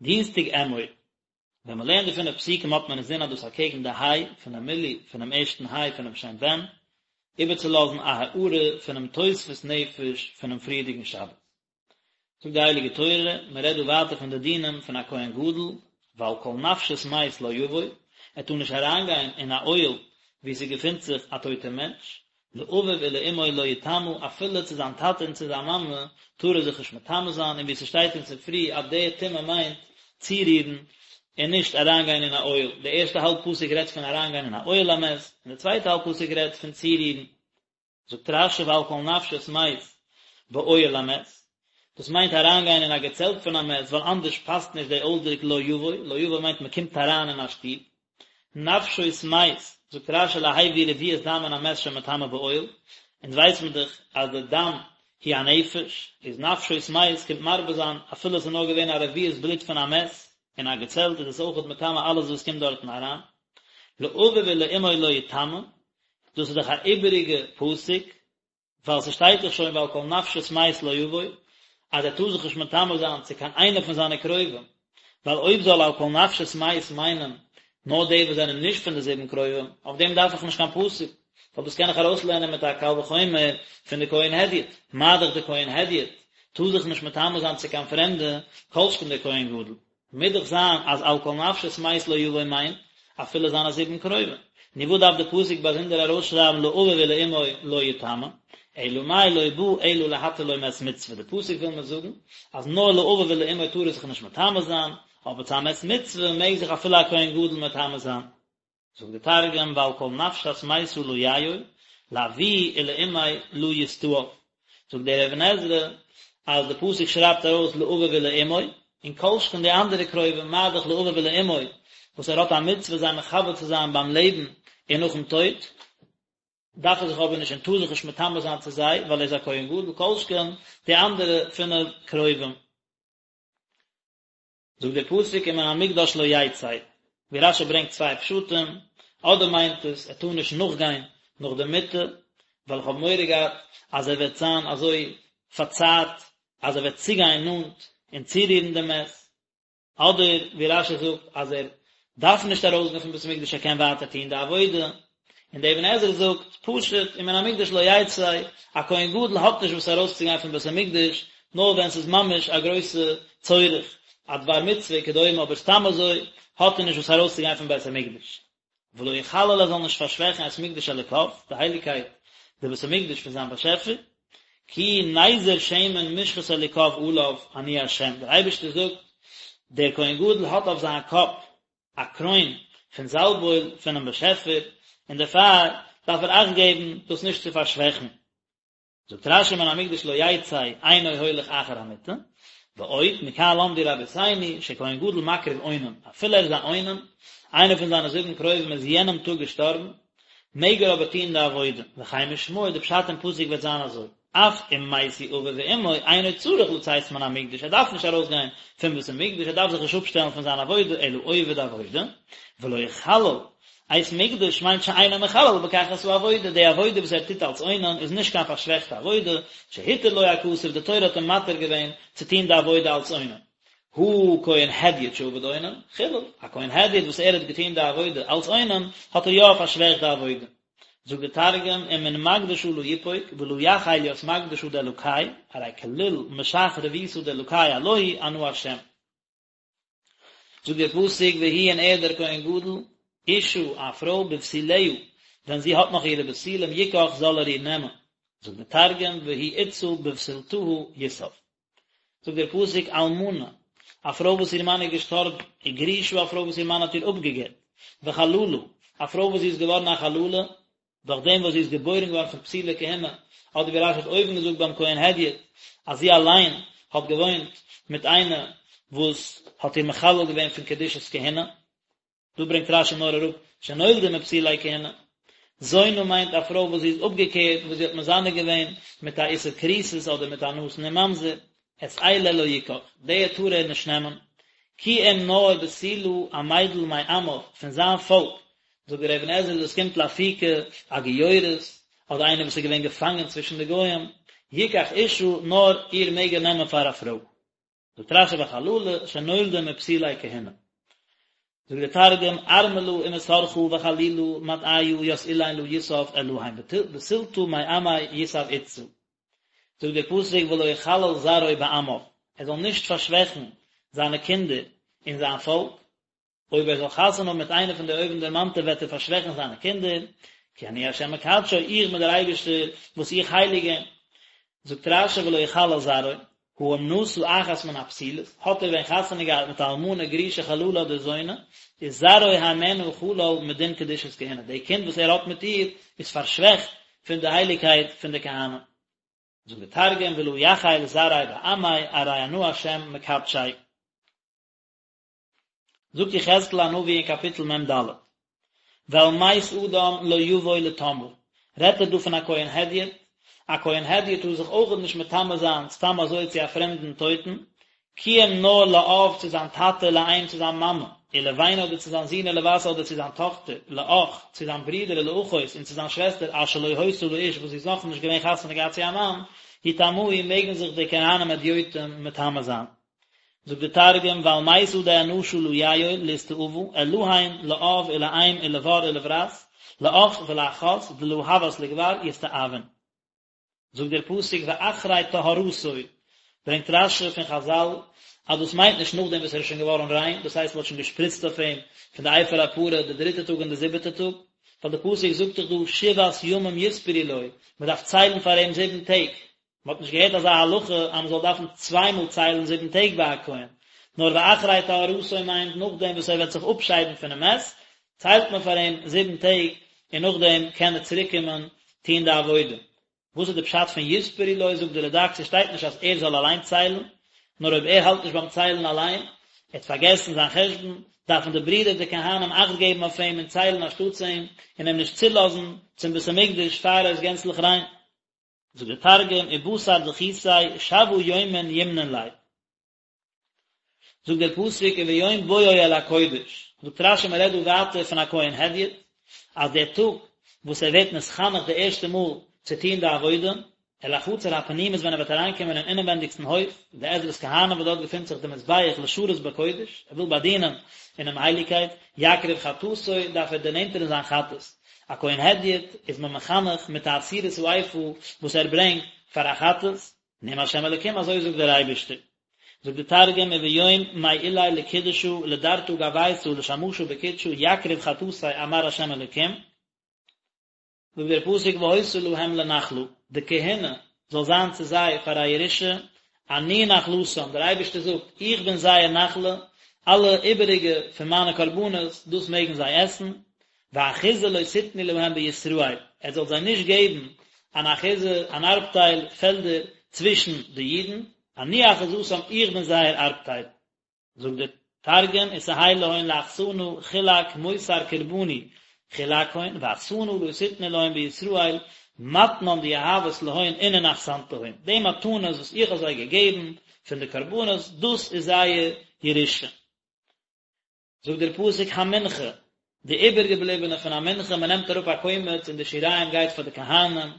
דינסטאג אמור, ווען מען לערנט די פינף פסוקים האט מען אינזין אז דאס אקעגן די היי פונעם מילוי פונעם ערשטן היי פונעם שם בן, איבערצולאזן א הארה פונעם תוספות נפש פונעם פריערדיגן שבת. זאגט די הייליגע תורה, מען רעדט דא ווייטער פון די דינים פון א כהן גדול, ואל כל נפשות מת לא יבוא, ער טאר נישט אריינגיין אין א אוהל וואו ס'געפינט זיך א טויטער מענטש, לאביו ולאמו לא יטמא, אפילו צו זיין טאטע און צו זיין מאמע טאר ער זיך נישט מטמא זיין, און ווי ס'שטייט אין ספרי אז די טומאה מיינט צורירן און נישט אריינגיין אין א אוהל, די ערשטע האלב פסוק רעדט פון אריינגיין אין א אוהל המת, און די צווייטע האלב פסוק רעדט פון צורירן. זאגט רש"י ואל כל נפשות מת באוהל המת, דאס מיינט אריינגיין אין א געצעלט פון א מת, ווייל אנדערש פאסט נישט די אויסדרוק לא יבוא, לא יבוא מיינט מען קומט אריין אין א שטוב. נפשות מת, זאגט רש"י להביא רביעית דם מן המת שמטמא באוהל, אונז ווייס מען דאך אז די דם הוא הנפש, איז נפשות מת קומט מרבה זיין אפילו עס איז נאר געווען א רביעית בלוט פון א מת אין א געצעלט איז עס אויכעט מטמא אלעס וואס קומט דארטן אריין. לאביו ולאמו לא יטמא, דאס איז דאך א איבעריגע פסוק, ווייל ס'שטייט דאך שוין ואל כל נפשות מת לא יבוא, אז ער טאר זיך נישט מטמא זיין צו קיין איינער פון זיינע קרובים, ווייל אויב זאל אל כל נפשות מת מיינען נאר די וואס זענען נישט פון די זיבן קרובים, אויף דעם דארף איך נישט קיין פסוק, ווייל דאס קען איך ארויסלערנען מיט א קל וחומר פון די כהן הדיוט, מה דאך די כהן הדיוט טאר זיך נישט מטמא זיין צו קיין פרעמדע, כל שכן דער כהן גדול. מוז דאך זיין אז אל כל נפשות מת לא יבוא מיינט אפילו זיינע זיבן קרובים. נו וואס דארף די פסוק באזונדער ארויסשרייבן לאביו ולאמו לא יטמא? אלא מאי לא בא אלא להתיר לו מת מצוה, די פסוק וויל מיר זאגן אז נאר לאביו ולאמו טאר ער זיך נישט מטמא זיין, אבער צו א מת מצוה מעג זיך אפילו א כהן גדול מטמא זיין. זאגט די תרגום ואל כל נפשת מיתא לא ייעול, לאבוהי ולאמיה לא יסתאב. זאגט דער אבן עזרא אז די פסוק שרייבט ארויס לאביו ולאמו, און כל שכן די אנדערע קרובים מה דאך לאביו ולאמו וואס ער האט א מצוה זיי מכבד צו זיין ביים לעבן און נאכן טויט, דארף ער זיך אבער נישט און טאר זיך נישט מטמא זיין צו זיי ווייל ער איז א כהן גדול, כל שכן די אנדערע פינף קרובים. זאגט דער פסוק ומן המקדש לא יצא, ווי רש"י ברענגט צוויי פשטים, אדער מיינט עס ער טאר נישט נאכגיין נאך די מיטה, ווייל איך האב מורא געהאט אז ער וועט זיין אזוי פארצערט אז ער וועט צוגיין נאנט און צורירן די מת, אדער ווי רש"י זאגט אז ער דארף נישט ארויסגיין פון בית המקדש ער קען ווייטער טון די עבודה, און דער אבן עזרא זאגט, פשוט, ומן המקדש לא יצא, א כהן גדול האט נישט וואס ארויסצוגיין פון בית המקדש, נאר ווען ס'איז ממש א גרויסע צורך, א דבר מצוה וכדומה, אבער סתם אזוי האט ער נישט וואס ארויסצוגיין פון בית המקדש. ולא יחלל ער זאל נישט פארשוועכן את מקדש אלוקיו, די הייליגקייט, די בית המקדש פון זיין באשעפער, כי נזר שמן משחת אלוקיו עליו, אני ה', דער אייבערשטער זאגט, דער כהן גדול האט אויף זיין קאפ א קרוין פון זאלבאויל פונעם באשעפער, און דערפאר דארף ער אכט געבן דאס נישט צו פארשוועכן. זאגט רש"י מן המקדש לא יצא אינו הולך אחר המיטה, ועוד, מכאן למדו רבותינו, שכהן גדול מקריב אונן, אפילו ער איז א אונן, איינער פון זיינע זיבן קרובים איז יענעם טאג געשטארבן, מעג ער אבער טון די עבודה, וכן משמעו, די פשט אין פסוק וועט זיין אזוי. אף אם מתו אביו ואמו אינו צריך לצאת מן המקדש, ער דארף נישט ארויסגיין פון בית המקדש, ער דארף זיך נישט אפשטעלן פון זיין עבודה, אלא עובד עבודה, ולא יחלל, את מקדש מיינט שאינו מחלל בכך את העבודה, די עבודה וואס ער טוט אלס אונן איז נישט קיין פארשוועכטע עבודה, שהתיר לו הכתוב, די תורה האט אים מתיר געווען צו טון די עבודה אלס אונן. הא כהן הדיוט שעבד אונן, חילל, א כהן הדיוט וואס ער האט געטון די עבודה אלס אונן, האט ער יא פארשוועכט די עבודה. זאגט דער תרגום, ומן מקדשא לא יפוק, ולא יחיל ית מקדשא דאלקי, ארי כליל משח רבותא דאלקי עלוהי אנא השם. זאגט דער פסוק והוא און ער דער כהן גדול, אשה א פרוי בבתוליה, ווען זי האט נאך אירע בתולים יקח זאל ער איר נעמען. זאגט דער תרגום והוא אתתא בבתולתהא יסב. זאגט דער פסוק אלמנה, א פרוי וואס איר מאן איז געשטארבן, וגרושה א פרוי וואס איר מאן האט איר אפגעגט, וחללה, א פרוי וואס זי איז געווארן א חללה, דורך דעם וואס זי איז געבוירן געווארן פון פסולי כהונה, אדער ווי רש"י האט אויבן געזאגט ביים כהן הדיוט, אז זי אליין האט געוואוינט מיט איינער וואס האט איר מחלל געווען פון קדושת כהונה. דא ברענגט רש"י נאר אראפ שנולדה מפסולי כהונה. זונה מיינט א פרוי וואס זי איז אפגעקערט וואס זי האט מזנה געווען מיט א איסור כריתות אדער מיט א נתין און ממזר, את אלה לא יקח, די טאר ער נישט נעמען, כי אם נאר בתולה א מיידל מעמיו פון זיין פאלק, זאגט דער אבן עזרא דאס קומט לאפוקי א גיורת אדער איינער וואס איז געווען געפאנגען צווישן די גוים, יקח אשה נאר איר מעג ער נעמען פאר א פרוי. זאגט רשי וחללה שנולדה מפסולי כהונה. זאגט דער תרגום, ארמלא ומסרחא וחלילא מטעיא ית אילין לא יסב אלהין בתולתא מעמיה יסב אתתא. זאגט דער פסוק ולא יחלל זרעו בעמיו, ער זאל נישט פארשוועכן זיינע קינדער אין זיין פאלק, אויב ער זאל חתונה האבן מיט איינע פון די אויבנדערמאנטע וועט ער פארשוועכן זיינע קינדער, כי אני ה' מקדשו, איך בין דער אייבערשטער וואס איך הייליג אים. זאגט רשי ולא יחלל זרעו, הא אם נשא אחת מן הפסולות, האט ער ווען חתונה געהאט מיט א אלמנה גרושה חללה אדער זונה, איז זרעו הימנה חלל מדין קדושת כהונה, די קינד וואס ער האט מיט איר איז פארשוועכט פון די הייליגקייט פון די כהנים. זאגט דער תרגום ולא יחיל זרעיה בעמיה ארי אנא השם מקדשיה. זאגט יחזקאל הנביא אין קאפיטל מ ד, ואל מת אדם לא יבוא לטמאה, רעדט ער דא פון א כהן הדיוט, א כהן הדיוט טאר זיך אויכעט נישט מטמא זיין סתם אזוי צו א פרעמדן טויטן, כי אם נאר לאב צו זיין טאטע לאם צו זיין מאמע, ולבן אדער צו זיין זון ולבת אדער צו זיין טאכטער, לאח צו זיין ברודער ולאחות און צו זיין שוועסטער אשר לא היתה לאיש וואס זי איז נאכנישט געווען חתונה געהאט צו א מאן, יטמאו מעגן זיך די כהנים הדיוטים מטמא זיין. זאגט די תרגום ואל מיתא דאנשא לא יעול לאסתאבא אלהין לאב ולאם ולבר ולברת לאח ולאחת דלא הות לגבר יסתאבון. זאגט דער פסוק ואחרי טהרתו, ברענגט רשי פון חזל אז דאס מיינט נישט נאכדעם וואס ער איז שוין געווארן ריין, דאס הייסט מען האט שוין געשפריצט אויף אים פון די אפר הפרה די דריטע טאג און די זיבעטע טאג, ווייל די פסוק זאגט דאך דא שבעת ימים יספרו לו, מען דארף ציילן פאר אים זיבן טעג, מען האט נישט געהערט אזא הלכה אז מען זאל דארפן צוויי מאל ציילן זיבן טעג ביי א כהן, נאר ואחרי טהרתו מיינט נאכדעם וואס ער וועט זיך אפשיידן פונעם מת, ציילט מען פאר אים זיבן טעג און נאכדעם קען ער צוריק קומען טון די עבודה. וואס איז די פשט פון יספרו לו, זאגט די רדק, ס'שטייט נישט אז ער זאל אליין ציילן, נאר אויב ער האלט נישט ביים ציילן אליין, ער האט פארגעסן זיין חשבון, דארפן די ברידער די כהנים אכט געבן אויף אים און ציילן אנשטאטס אים, און אים נישט צולאזן צום בית המקדש פאר ער איז גענצליך ריין. זאגט דער תרגום, ובתר דכיתיה שבעא יומין ימנון ליה. זאגט דער פסוק וביום בואו אל הקודש, זאגט רשי מען רעדט דא ווייטער פון א כהן הדיוט, אז דער טאג וואס ער ווערט נתחנך די ערשטע מאל צו טון די עבודה, אל החצר הפנימית ווען ער וועט אריינקומען אין אינעווענדיגסטן הויף, די עזרת כהנים וואס דארט געפינט זיך די מזבח לשרת בקודש, ער וויל באדינען אינעם הייליגקייט, יקריב חטאתו, דארף ער דערנענטערן זיין חטאת, א כהן הדיוט איז מען מחנך מיט א עשירית האיפה וואס ער ברענגט פאר א חטאת, נאם השם אלקים אזוי זאגט דער אייבערשטער. זאגט די תרגום וביום מעיליה לקודשא לדרתא גויתא לשמשא בקודשא יקריב חטאתיה אמר השם אלקים. זאגט דער פסוק והיתה להם לנחלה, די כהונה זאל זיין צו זיי פאר א ירושה, אני נחלתם, דער אייבערשטער זאגט, איך בין זייער נחלה, אלע איבעריגע פון מיינע קרבנות, דאס מעגן זיי עסן, ואחוזה לא תתנו להם בישראל, עטס זאלט זיי נישט געבן אן אחוזה, אן ארבטייל, פעלדער, צווישן די אידן, אני אחוזתם, איך בין זייער ארבטייל. זאגט דער תרגום ותהי להון לאחסנא חולק מותר קרבני חולקהון ואחסנא לא תתנו להון בישראל מתנן דיהבת להון אינון אחסנתהון, די מתנות וואס איך האב זיי געגעבן פון די קרבנות דאס איז זייער ירושה. זאגט דער פסוק המנחה, די איבערגעבליבענע פון א מנחה, מען נעמט אראפ א קומץ און די שיריים גייט פאר די כהנים,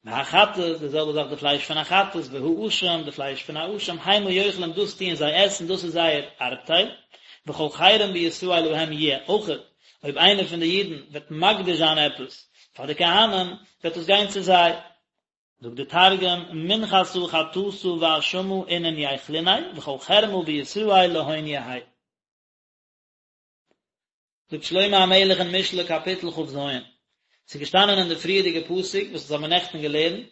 והחטאת, די זעלבע זאך די פלייש פון א חטאת, והאשם, די פלייש פון א אשם, המה יאכלון דאס טוען זיי עסן, דאס איז זייער ארבטייל, וכל חרם בישראל להם יהיה, אויכעט אויב איינער פון די אידן וועט מקדיש זיין עפעס פאר די כהנים, וועט דאס גיין צו זיי. זאגט די תרגום, מנחתא חטאתא ואשמא אינון ייכלוניה, וכל חרמא בישראל להון יהי. זאגט שלמה המלך אין משלי קאפיטל כ"ז, ס'איז געשטאנען אין די פריערדיגע פסוק וואס אונז האבן נעכטן געלערנט,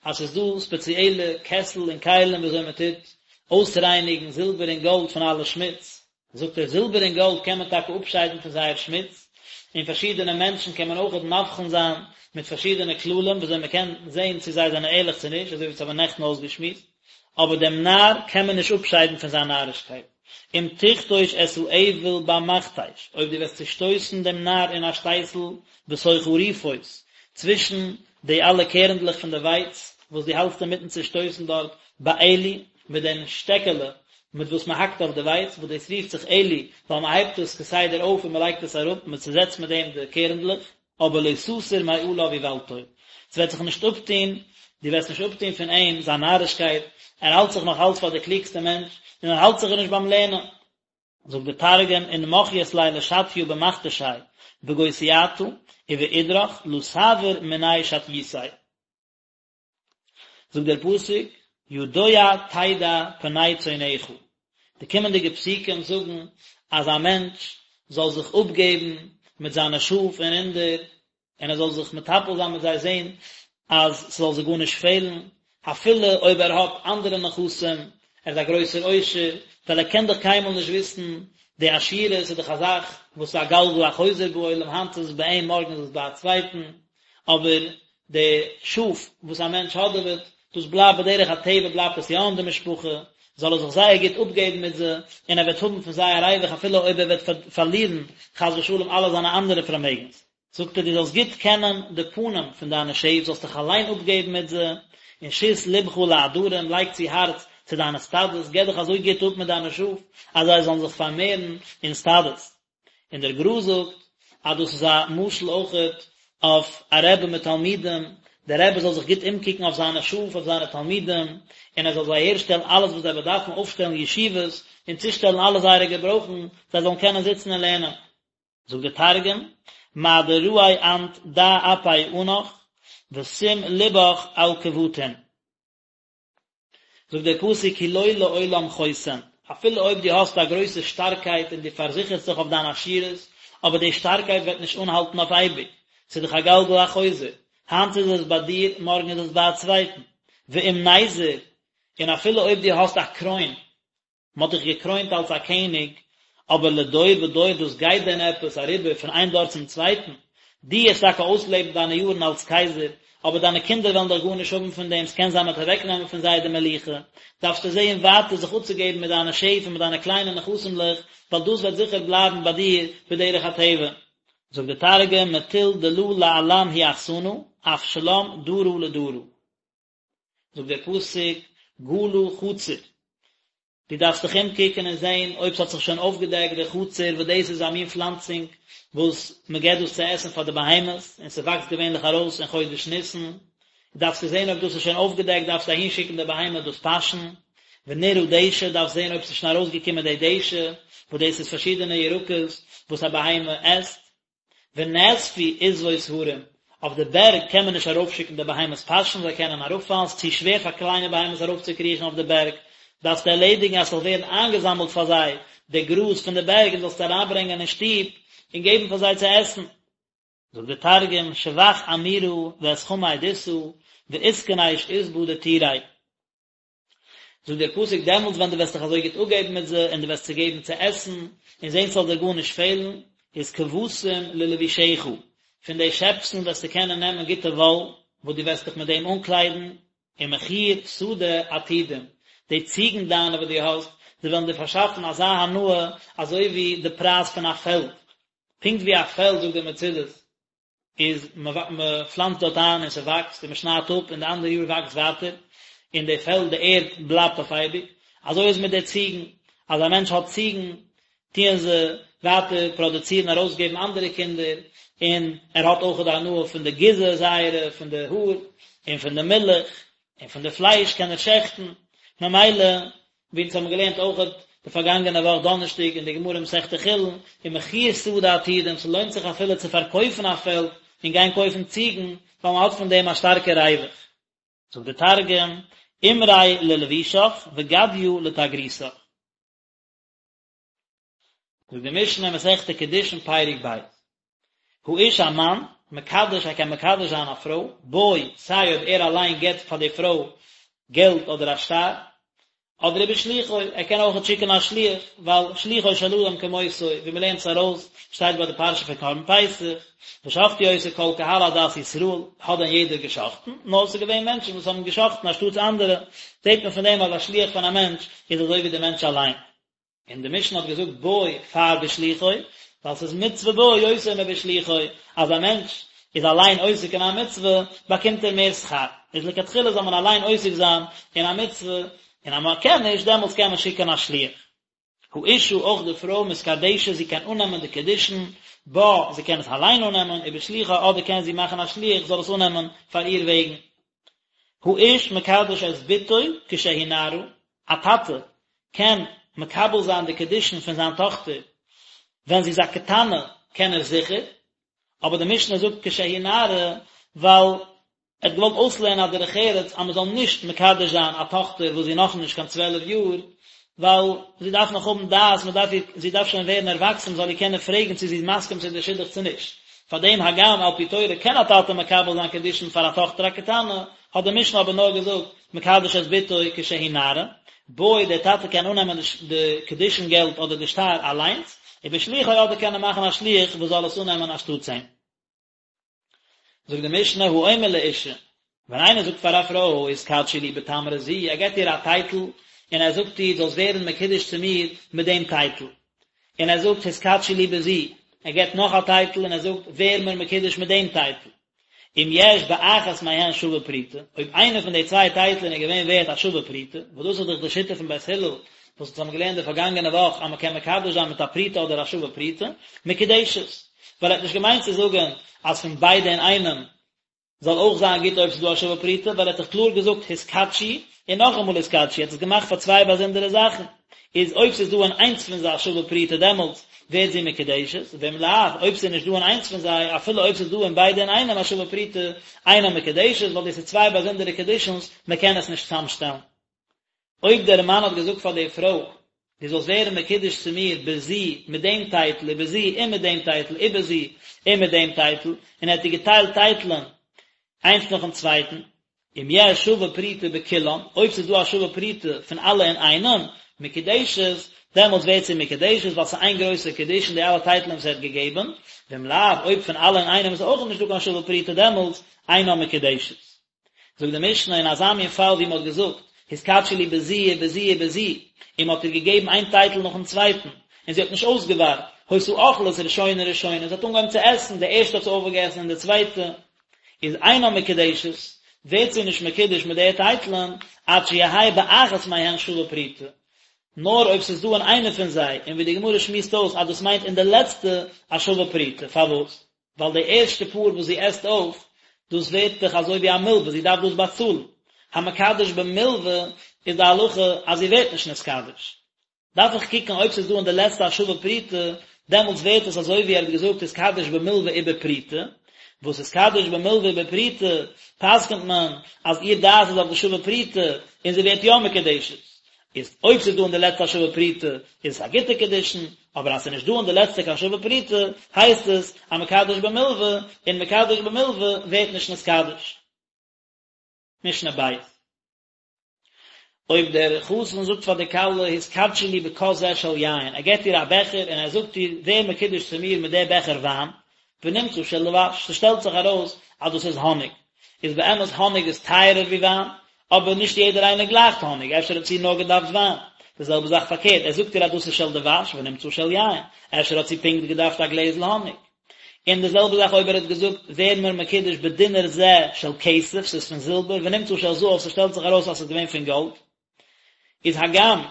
אז ס'איז דא ספעציעלע קעסל און כלים ווי אזוי מען טוט אויסרייניגן זילבער און גאלד פון אלע שמוץ, זאגט ער, זילבער און גאלד קען מען טאקע אפשיידן פון זייער שמוץ, און פארשידענע מענטשן קען מען אויכעט מבחין זיין מיט פארשידענע כללים ווי אזוי מען קען זען צו זיי זענען ערליך צו נישט, אזוי ווי אונז האבן נעכטן אויסגעשמועסט. אבער דעם נאר קען מען נישט אפשיידן פון זיין נארישקייט. אם תכתוש את האויל במכתש, אויב דו וועסט צושטויסן דעם נאר אין א שטייסל בתוך הריפות, צווישן די אלע קערנדלעך פון די ווייץ וואס דו האלטסט אינמיטן צושטויסן דארט, בעלי, מיט דעם שטעקעלע מיט וואס מען האקט אויף די ווייץ, וואס דאס רופט זיך עלי, ווייל מען הייבט עס כסדר אויף און מען לייגט עס אראפ, מען צוזעצט מיט דעם די קערנדלעך. אבער לא תסור מעליו איוולתו, ס'וועט זיך נישט אפטון. דו וועסט נישט אפטון פון אים זיין נארישקייט, ער האלט זיך נאך אלץ פאר דער קלוגסטער מענטש, און ער האלט זיך נישט ביים לערנען. זאגט דער תרגום, אין מחיית ליה לשטיא במכתשיה בגוסייתא ובאידרך לא תעביר מיניה שטיותיה. זאגט דער פסוק, ידוע תדע פני צאנך, די קומענדיגע פסוקים זאגן אז א מענטש זאל זיך אפגעבן מיט זיינע שאף און רינדער, און ער זאל זיך מטפל זיין מיט זיי זען אז ס'זאל זיי גארנישט פעלן, אפילו אויב ער האט אנדערע נכסים, ער איז א גרויסער עושר, ווייל ער קען דאך קיינמאל נישט וויסן, די עשירות איז דאך א זאך וואס איז א גלגל החוזר בעולם, היינט איז עס ביי אים מארגן איז עס ביי א צווייטן, אבער די שאף וואס א מענטש האדעוועט, דאס בלייבט בדרך הטבע בלייבט עס יא אין די משפחה, זאל ער זיך זייער גוט אפגעבן מיט זיי, און ער וועט האבן פון זיי א ריווח אפילו אויב ער וועט פארלירן חס ושלום אלע זיינע אנדערע פארמעגנס. זאגט ער דו זאלסט גוט קענען די פנים פון דיינע שעף, זאלסט דיך אליין אפגעבן מיט זיי, און שית לבך לעדרים, לייג צו הארץ צו דיינע סטאדעס, געב דיך אזוי גוט אפ מיט דיינע שאף, אז זיי זאלן זיך פארמערן אין סטאדעס. און דער גר"א זאגט אז דאס איז א משל אויכעט אויף א רבי מיט תלמידים, דער רבי זאל זיך גוט אומקוקן אויף זיינע שאף, אויף זיינע תלמידים, און ער זאל זיי אהערשטעלן אלעס וואס זיי באדארפן, אויפשטעלן ישיבות, און צושטעלן אלע זייערע געברויכן, זיי זאלן קענען זיצן און לערנען. זאגט דער תרגום, מה דרעי אנת דע אפי ענך, ושים לבך על כבטין. זאגט דער פסוק כי לא לעולם חוסן, אפילו אויב דו האסט א גרויסע שטארקייט און דו פארזיכערסט זיך אויף דיין עשירות, אבער די שטארקייט וועט נישט אנהאלטן אויף אייביג, ס'איז דאך א גלגל החוזר, היינט איז עס ביי דיר, מארגן איז עס ביי א צווייטן, ואם נזר, און אפילו אויב דו האסט א קרוין, מען האט דיך געקרוינט אלס א קעניג, אבער לדור ודור דאס גייט דען עפעס אריבער פון איין דור צום צווייטן? דו וועסט טאקע אויסלעבן דיינע יארן אלס קייזער, אבער דיינע קינדער וועלן דאך גארנישט האבן פון דעם, ס'קען זיין מ'וועט אוועקנעמען פון זיי די מלוכה, דארפסטו זען ווייטער זיך אפצוגעבן מיט דיינע שעף און מיט דיינע קליינע נכסים'לעך, ווייל דאס וועט זיכער בלייבן ביי דיר בדרך הטבע. זאגט דער תרגום, מטול דלא לעלם הוא אחסנא, אף שלם דרא לדרא. זאגט דער פסוק, גלה חציר, דו דארפסט דיך אומקוקן און זען אויב ס'האט זיך שוין אויפגעדעקט דער חציר, וואס דאס איז א מין פלאנצונג וואס מען געבט דאס צו עסן פאר די בהמות, און ס'וואקסט געווענליך ארויס אין חודש ניסן, דארפסטו זען אויב דאס איז שוין אויפגעדעקט, דארפסטו אהינשיקן די בהמה דאס פאשן, ונראה דשא, דארפסט זען אויב ס'איז שוין ארויסגעקומען די דשא, וואס דאס איז פארשידענע ירקות וואס א בהמה עסט. ונאספו עשבות הרים, אויף די בערג קען מען נישט ארויפשיקן די בהמות פאשן, זיי קענען אראפפאלן, ס'איז צו שווער פאר קליינע בהמות ארויפצוקריכן אויף די בערג, דארפסטו ערלעדיגן אז ס'זאל ווערן איינגעזאמלט פאר זיי די גראז פון די בערג און זאלסט אריינברענגען אין שטוב און געבן פאר זיי צו עסן. זאגט דער תרגום, שבח עמירא ואת חמי דסא, ואתכניש עסבא דטורי. זאגט דער פסוק דעמאלטס ווען דו וועסט דיך אזוי גוט אפגעבן מיט זיי און דו וועסט זיי געבן צו עסן און זען ס'זאל דיר גארנישט פעלן, איז כבשים ללבושך, פון די שעפסן וועסטו קענען נעמען גוטע וואל וואס דו וועסט דיך מיט דעם אנקליידן, ומחיר שדה עתודים, די ציגן דיינע וואס דו האסט, זיי וועלן דיר פארשאפן אזא הנאה אזוי ווי די פרייז פון א פעלד, פונקט ווי א פעלד זאגט דער מצודות, איז מען פלאנצט דארט איין און ס'וואקסט און מען שניידט אפ און די אנדערע יאר וואקסט ווייטער און די פעלד די ערד בלייבט אויף אייביג, אזוי איז מיט די ציגן, אז א מענטש האט ציגן טוען זיי ווייטער פראדוצירן ארויסגעבן אנדערע קינדער און ער האט אויך די הנאה פון די גיזה זייערע פון די האר און פון די מילך און פון די פלייש קען ער שעכטן, ממילא ווי אונז האבן געלערנט אויכעט די פארגאנגענע וואך דאנערשטאג אין די גמרא מסכת חולין, ומחיר שדה עתודים, ס'לוינט זיך אפילו צו פארקויפן א פעלד און גיין קויפן ציגן, ווייל מ'האט פון דעם א שטארקע ריווח. זאגט די תרגום, עמרי ללבושך וגדיא לתגרותך. זאגט די משנה מסכת קידושין פרק ב', האיש א מאן, מקדש ער קען מקדש זיין א פרוי, בו, סיי אויב ער אליין געבט פאר די פרוי געלט אדער א שטר, אדער ובשלוחו, ער קען אויכעט שיקן א שליח, ווייל שלוחו של אדם כמותו, ווי מען לערנט עס ארויס, שטייט ביי די פרשה פון קרבן פסח, ושחטו אותו כל קהל עדת ישראל, האט דען יעדער געשחטן? נאר עס איז געווען מענטשן וואס האבן געשחטן אנשטאטס אנדערע, זעט מען פון דעם אז א שליח פון א מענטש איז אזוי ווי דער מענטש אליין. און די משנה האט געזאגט בו פאר בשלוחו, ווייל ס'איז מצוה בו יותר מבשלוחו, אז א מענטש איז אליין עוסק אין א מצוה, באקומט ער מער שכר, איז לכתחילה זאל מען אליין עוסק זיין אין א מצוה, און אז מען קען נישט, דעמאלטס קען מען שיקען א שליח. האשה, אויך די פרוי, מתקדשת, זי קען אננעמען די קידושין, בה, זי קען עס אליין אננעמען, ובשלוחה, אדער קען זי מאכן א שליח זאל עס אננעמען פאר איר וועגן. האיש מקדש את בתו כשהיא נערה, א טאטע קען מקבל זיין די קידושין פון זיין טאכטער ווען זי איז א קטנה קען ער זיכער, אבער די משנה זאגט כשהיא נערה ווייל ער האט געוואלט אויסלערנען א דרך ארץ אז מען זאל נישט מקדש זיין א טאכטער וואס זי איז נאכנישט קיין צוועלף יאר, ווייל זי דארף נאך האבן דעת, מען דארף איר, זי דארף שוין ווערן ערוואקסן מען זאל איר קענען פרעגן צו זי איז מסכים צו די שידוך צו נישט. פאר דעם הגם על פי תורה קען א טאטע מקבל זיין קידושין פאר א טאכטער א קטנה, האט די משנה אבער נאר געזאגט מקדש את בתו כשהיא נערה, בו דער טאטע קען אננעמען די קידושין געלט אדער די שטר אליינס, ובשלוחו אדער קען ער מאכן א שליח וואס זאל עס אננעמען אנשטאטס אים. זאגט די משנה האומר לאשה, ווען איינער זאגט פאר א פרוי התקדשי לי בתמרה זו, ער געבט איר א טייטל און ער זאגט איר זאלסט ווערן מקודש צו מיר מיט דעם טייטל, און ער זאגט התקדשי לי בזו, ער געבט נאך א טייטל און ער זאגט ווער מיר מקודש מיט דעם טייטל. אם יש באחת מהן שווה פרוטה, אויב איינע פון די צוויי טייטלען איז געווען ווערט א שווה פרוטה, וואס דאס איז דאך די שיטה פון בית הלל, וואס אונז האבן געלערנט די פארגאנגענע וואך אז מען קען מקדש זיין מיט א פרוטה אדער א שווה פרוטה, מקודשת, ווייל ער האט נישט געמיינט צו זאגן אז פון ביידע אינאיינעם זאל אויך זיין גוט אויב ס'איז דא א שווה פרוטה, ווייל ער האט דאך קלאר געזאגט התקדשי און נאכאמאל התקדשי, ער האט עס געמאכט פאר צוויי באזונדערע זאכן, איז אויב ס'איז דא אין איינס פון זיי א שווה פרוטה דעמאלטס ווערט זי מקודשת, ואם לאו, אויב ס'איז נישט דא אין איינס פון זיי, אפילו אויב ס'איז דא אין ביידע אינאיינעם א שווה פרוטה, אינה מקודשת, ווייל דאס איז צוויי באזונדערע קידושין'ס, מ'קען עס נישט צאמשטעלן. אויב דער מאן האט געזאגט פאר די פרוי, דו זאלסט ווערן מקודש צו מיר בזו מיט דעם טייטל ובזו און מיט דעם טייטל ובזו און מיט דעם טייטל, און ער האט איר געטיילט טייטלען איינס נאכן צווייטן, אם יש שווה פרוטה בכולן, אויב ס'איז דא א שווה פרוטה פון אלע אינאיינעם, מקודשת, דעמאלטס ווערט זי מקודשת ווייל ס'איז איין גרויסע קידושין די אלע טייטלען וואס ער האט געגעבן, ואם לאו, אויב פון אלע אינאיינעם איז אויך נישטא קיין שווה פרוטה דעמאלטס אינה מקודשת. זאגט די משנה אין אזא מין פאל ווי מען האט געזאגט התקדשי לי בזו ובזו ובזו און מען האט איר געגעבן איין טייטל נאכן צווייטן און זי האט נישט אויסגעווארט, היתה אוכלת ראשונה ראשונה, זי האט אנגעהויבן צו עסן, די ערשטע האט זי אויפגעגעסן און די צווייטע איז אינה מקודשת, ווערט זי נישט מקודש מיט די טייטלען עד שיהא באחת מהן שווה פרוטה, נאר אויב ס'איז דא אין איינע פון זיי, און ווי די גמרא שמועסט אויס אז דאס מיינט אין די לעצטע א שווה פרוטה, פארוואס? ווייל די ערשטע פאר וואס זי עסט אויף, דאס ווערט דאך אזוי ווי א מלווה, זי דארף דאס באצאלן. המקדש במלווה איז די הלכה אז זי ווערט נישט נתקדש. דארף איך קוקן אויב ס'איז דא אין די לעצטע א שווה פרוטה, דעמאלטס ווערט עס אזוי ווי ער האט געזאגט התקדש במלווה ובפרוטה, וואס התקדש במלווה ובפרוטה פסק'נט מען אז איר דעת איז אויף די שווה פרוטה און זי ווערט יא מקודשת. איז אויב ס'איז דא אין די לעצטע א שווה פרוטה איז עס א גוטע קידושין, אבער אז ס'איז נישט דא אין די לעצטע קיין שווה פרוטה הייסט עס א מקדש במלווה, און מקדש במלווה ווערט נישט נתקדש. משנה ב'. אויב דער חתן זאגט פאר די כלה התקדשי לי בכוס זה של יין, ער געבט איר א בעכער און ער זאגט איר ווער מקודש צו מיר מיט די בעכער וויין, ונמצא של דבש, ס'שטעלט זיך ארויס אז דאס איז האניג, איז באמת האניג איז טייערער ווי וויין, אבער נישט יעדער איינער גלייכט האניג, אפשר האט זי נאר געדארפט וויין. די זעלבע זאך פארקערט, ער זאגט איר אז דאס איז של דבש ונמצא של יין, אפשר האט זי פונקט געדארפט א גלעזל האניג. און די זעלבע זאך אויב ער האט געזאגט ווער מיר מקודש בדינר זה של כסף, ס'איז פון זילבער, ונמצא של זהב, ס'שטעלט זיך ארויס אז ס'איז געווען פון גאלד. איז הגם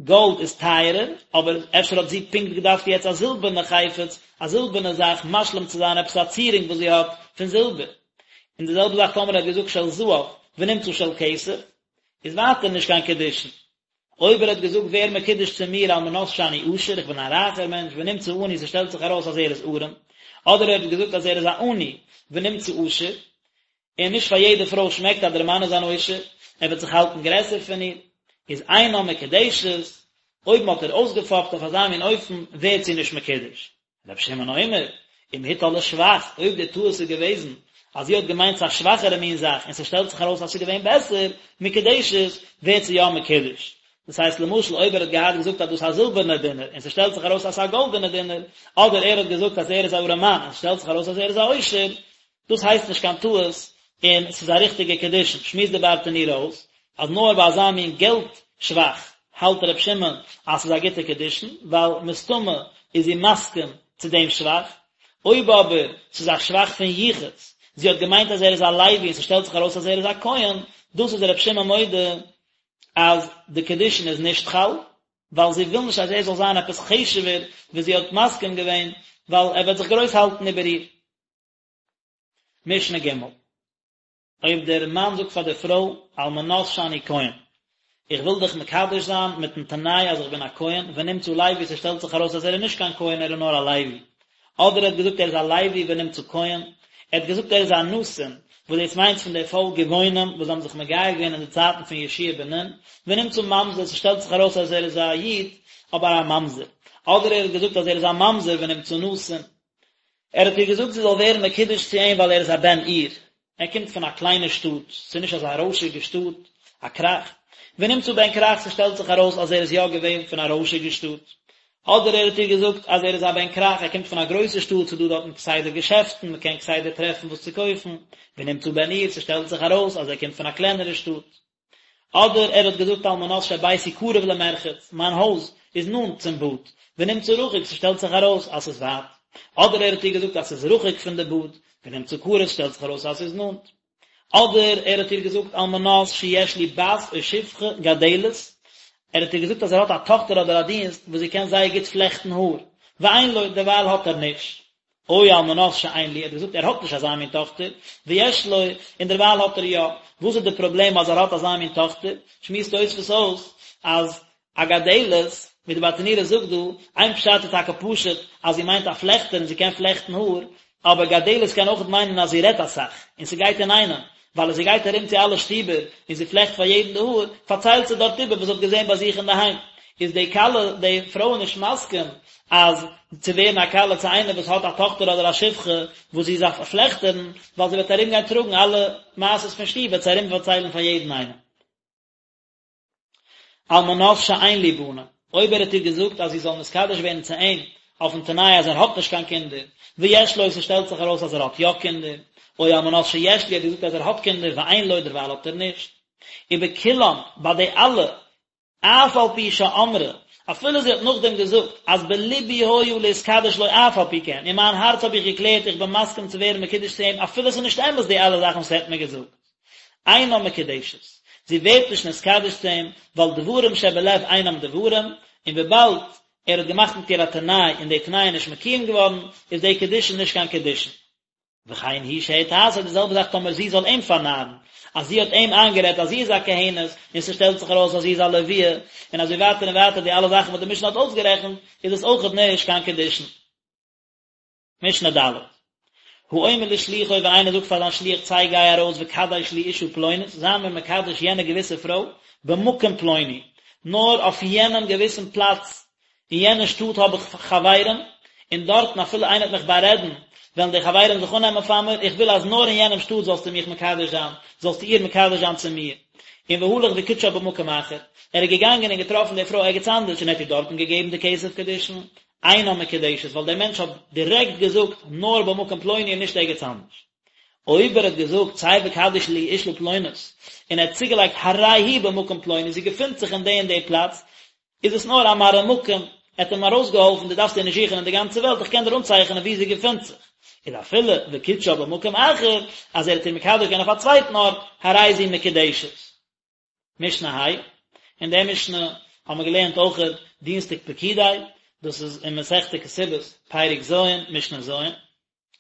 גאלד איז טייערער, אבער אפשר האט זי פונקט געדארפט יעצט א זילבערנע חפץ, א זילבערנע זאך, משלים צו זיין עפעס א צירונג וואס זי האט פון זילבער. און די זעלבע זאך טאמער ער האט געזאגט של זהב ונמצא של כסף, איז ווייטער נישט קיין קידושין. אויב ער האט געזאגט ווער מקודש צו מיר על מנת שאני עשיר, איך בין א רייכער מענטש, ונמצא עני, ס'שטעלט זיך ארויס אז ער איז ארעם, אדער ער האט געזאגט אז ער איז א עני, ונמצא עשיר, און נישט פאר יעדע פרוי שמעקט אז דער מאן איז אן עושר, ער וועט זיך האלטן גרעסער פון איר, איז אינה מקודשת, אויב מען האט איר אויסגעפאפט אויף אזא מין אופן, ווערט זי נישט מקודש. רבי שמעון אומר, אם הטעה לשבח, אויב די טעות איז געוועזן אז זי האט געמיינט ס'איז א שוואכערע מין זאך און ס'שטעלט זיך ארויס אז ס'איז געווען בעסער, מקודשת, ווערט זי יא מקודש. דאס הייסט למשל אויב ער האט געהאט געזאגט אז דאס איז א זילבערנער דינר און ס'שטעלט זיך ארויס אז ס'איז א גאלדענער דינר, אדער ער האט געזאגט אז ער איז א ארעמאן און ס'שטעלט זיך ארויס אז ער איז א עושר, דאס הייסט נישט קיין טעות און ס'איז א ריכטיגע קידושין, שמועסט די ברטנורא אויס אז נאר ביי אזא מין געלט שבח האלט ר' שמעון אז ס'איז א גוטע קידושין, ווייל מסתמא איז זי מסכים צו דעם שבח, אויב אבער ס'איז א שבח פון יחוס, זי האט געמיינט אז ער איז א לוי און ס'שטעלט זיך ארויס אז ער איז א כהן, דאס איז ר' שמעון מודה אז די קידושין איז נישט חל, ווייל זי וויל נישט אז ער זאל זיין עפעס חשוב'ער ווי זי האט מסכים געווען, ווייל ער וועט זיך גרויס האלטן איבער איר. משנה ג'. אויב דער מאן זאגט פאר דער פרוי, על מנת שאני כהן, איך וויל דיך מקדש זיין מיטן תנאי אז איך בין א כהן, ונמצא לוי, ס'שטעלט זיך ארויס אז ער איז נישט קיין כהן ער איז נאר א לוי. אדער ער האט געזאגט ער איז א לוי ונמצא כהן, ער האט געזאגט ער איז א נתין, וואס דאס מיינט פון די פאלק גבעונים וואס האבן זיך מגייר געווען אין די צייטן פון יהושע בן נון, ונמצא ממזר, ס'שטעלט זיך ארויס אז ער איז א איד, אבער א ממזר. אדער ער האט געזאגט אז ער איז א ממזר ונמצא נתין. ער האט איר געזאגט זי זאל ווערן מקודש צו אים ווייל ער איז א בן עיר, ער קומט פון א קליינע שטאט, ס'איז נישט אזא רוישיגע שטאט, א כרך, ונמצא בן כרך ס'שטעלט זיך ארויס אז ער איז יא געווען פון א רוישיגע שטאט, אדער ער האט איר געזאגט אז ער איז א בן כרך, ער קומט פון א גרויסע שטאט, ס'איז דא דארטן כסדר געשעפטן, מ'קען כסדר טרעפן וואס צו קויפן, ונמצא בן עיר, ס'שטעלט זיך ארויס אז ער קומט פון א קלענערע שטאט. אדער ער האט געזאגט על מנת שביתי קרוב למרחץ, מיין הויז איז נאנט צום באד, ונמצא רחוק ס'שטעלט זיך ארויס אז ס'איז ווייט, אדער ער האט איר געזאגט אז ס'איז רחוק פון די באד, ונמצא קרוב ס'שטעלט זיך ארויס אז ס'איז נאנט. אדער ער האט איר געזאגט על מנת שיש לי בת או שפחה גדלת, ער האט איר געזאגט אז ער האט א טאכטער אדער א דינסט וואס זי קען זייער גוט פלעכטן האר, ואין לו, דערווייל האט ער נישט. או על מנת שאין לי, ער האט געזאגט ער האט נישט אזא מין טאכטער, ויש לו, און דערווייל האט ער יא, וואס איז די פראבלעם אז ער האט אזא מין טאכטער? שמועסט תוספות אויס אז א גדלת, ווי די ברטנורא זאגט דא, איין פשט איז טאקע פשוט אז זי מיינט א פלעכטער און זי קען פלעכטן האר, אבער גדלת קען אויכעט מיינען אז זי רעדט אסאך, און ס'גייט אינאיינעם, ווייל אז זי גייט ארום צו אלע שטיבער און זי פלעכט פאר יעדן די האר, פארציילט זי דארט איבער וואס זי האט געזען ביי זיך אינדערהיים. איז די כלה, די פרוי נישט מסכים אז צו ווערן א כלה צו איינער וואס האט א טאכטער אדער א שפחה וואס זי איז א פלעכטערין, ווייל זי וועט ארום גיין טראגן אלע מעשות פון שטוב וועט זי ארום פארציילן פאר יעדן איינעם. על מנת שאין לי בנים, אויב ער האט איר געזאגט אז זי זאל נתקדש ווערן צו אים אויפן תנאי אז ער האט נישט קיין קינדער, ויש לו ס'שטעלט זיך ארויס אז ער האט יא קינדער, או על מנת שיש לי ער האט געזאגט אז ער האט קינדער ואין לו דערווייל האט ער נישט. ובכולם, ביי די אלע, אף על פי שאמרה, אפילו זי האט נאכדעם געזאגט אז בלבי היה להתקדש לו אף על פי כן, אין מיין הארץ האב איך געקלערט איך בין מסכים צו ווערן מקודש צו אים אפילו ס'איז נישט אמת די אלע זאכן וואס ער האט מיר געזאגט. אינה מקודשת, זי ווערט נישט נתקדש צו אים, ווייל דברים שבלב אינם דברים, און וויבאלד ער האט געמאכט מיט איר א תנאי און די תנאי איז נישט מקוים געווארן, איז די קידושין נישט קיין קידושין. וכן היא שהטעתו, די זעלבע זאך טאמער זי זאל אים פארנארן, אז זי האט אים איינגערעדט אז זי איז א כהנת, און ס'שטעלט זיך ארויס אז זי איז א לוויה, און אזוי ווייטער און ווייטער די אלע זאכן וואס די משנה האט אויסגערעכנט, איז עס אויכעט נישט קיין קידושין. משנה ד'. האומר לשלוחו ווען איינער זאגט פאר זיין שליח צא גיי ארויס וקדש לי אישה פלונית, זיי מיר מקדש יענע געוויסע פרוי, במקום פלוני, נאר אויף יענעם געוויסן פלאץ, אין יענע שטאט האב איך חברים, און דארטן אפילו איינער וועט מיך בארעדן, וועלן די חברים זיך אננעמען פאר מיר, איך וויל אז נאר אין יענעם שטאט זאלסטו מיך מקדש זיין, זאלסטו איר מקדש זיין צו מיר. און והלך וקידשה במקום אחר, ער איז געגאנגען און געטראפן די פרוי ערגעץ אנדערש און ער האט איר דארטן געגעבן די כסף קידושין, אינה מקודשת ווייל דער מענטש האט דירעקט געזאגט נאר במקום פלוני און נישט ערגעץ אנדערש. אויב ער האט געזאגט צא וקדש לי אישה פלונית און ער האט צוגעלייגט הרי היא במקום פלוני זי געפינט זיך אין די און די פלאץ, איז עס נאר א מראה מקום, ער האט אים ארויסגעהאלפן דו דארפסט איר נישט זוכן אין די גאנצע וועלט איך קען דיר אנצייכענען וואו זי געפינט זיך. איז אפילו וקידשה במקום אחר אז ער האט איר מקדש געווען אויף א צווייטן ארט, הרי זו מקודשת. משנה ה', אין דער משנה האבן מיר געלערנט אויכעט דינסטאג פקודי, דאס איז אין מסכת כתובות, פרק ז', משנה ז',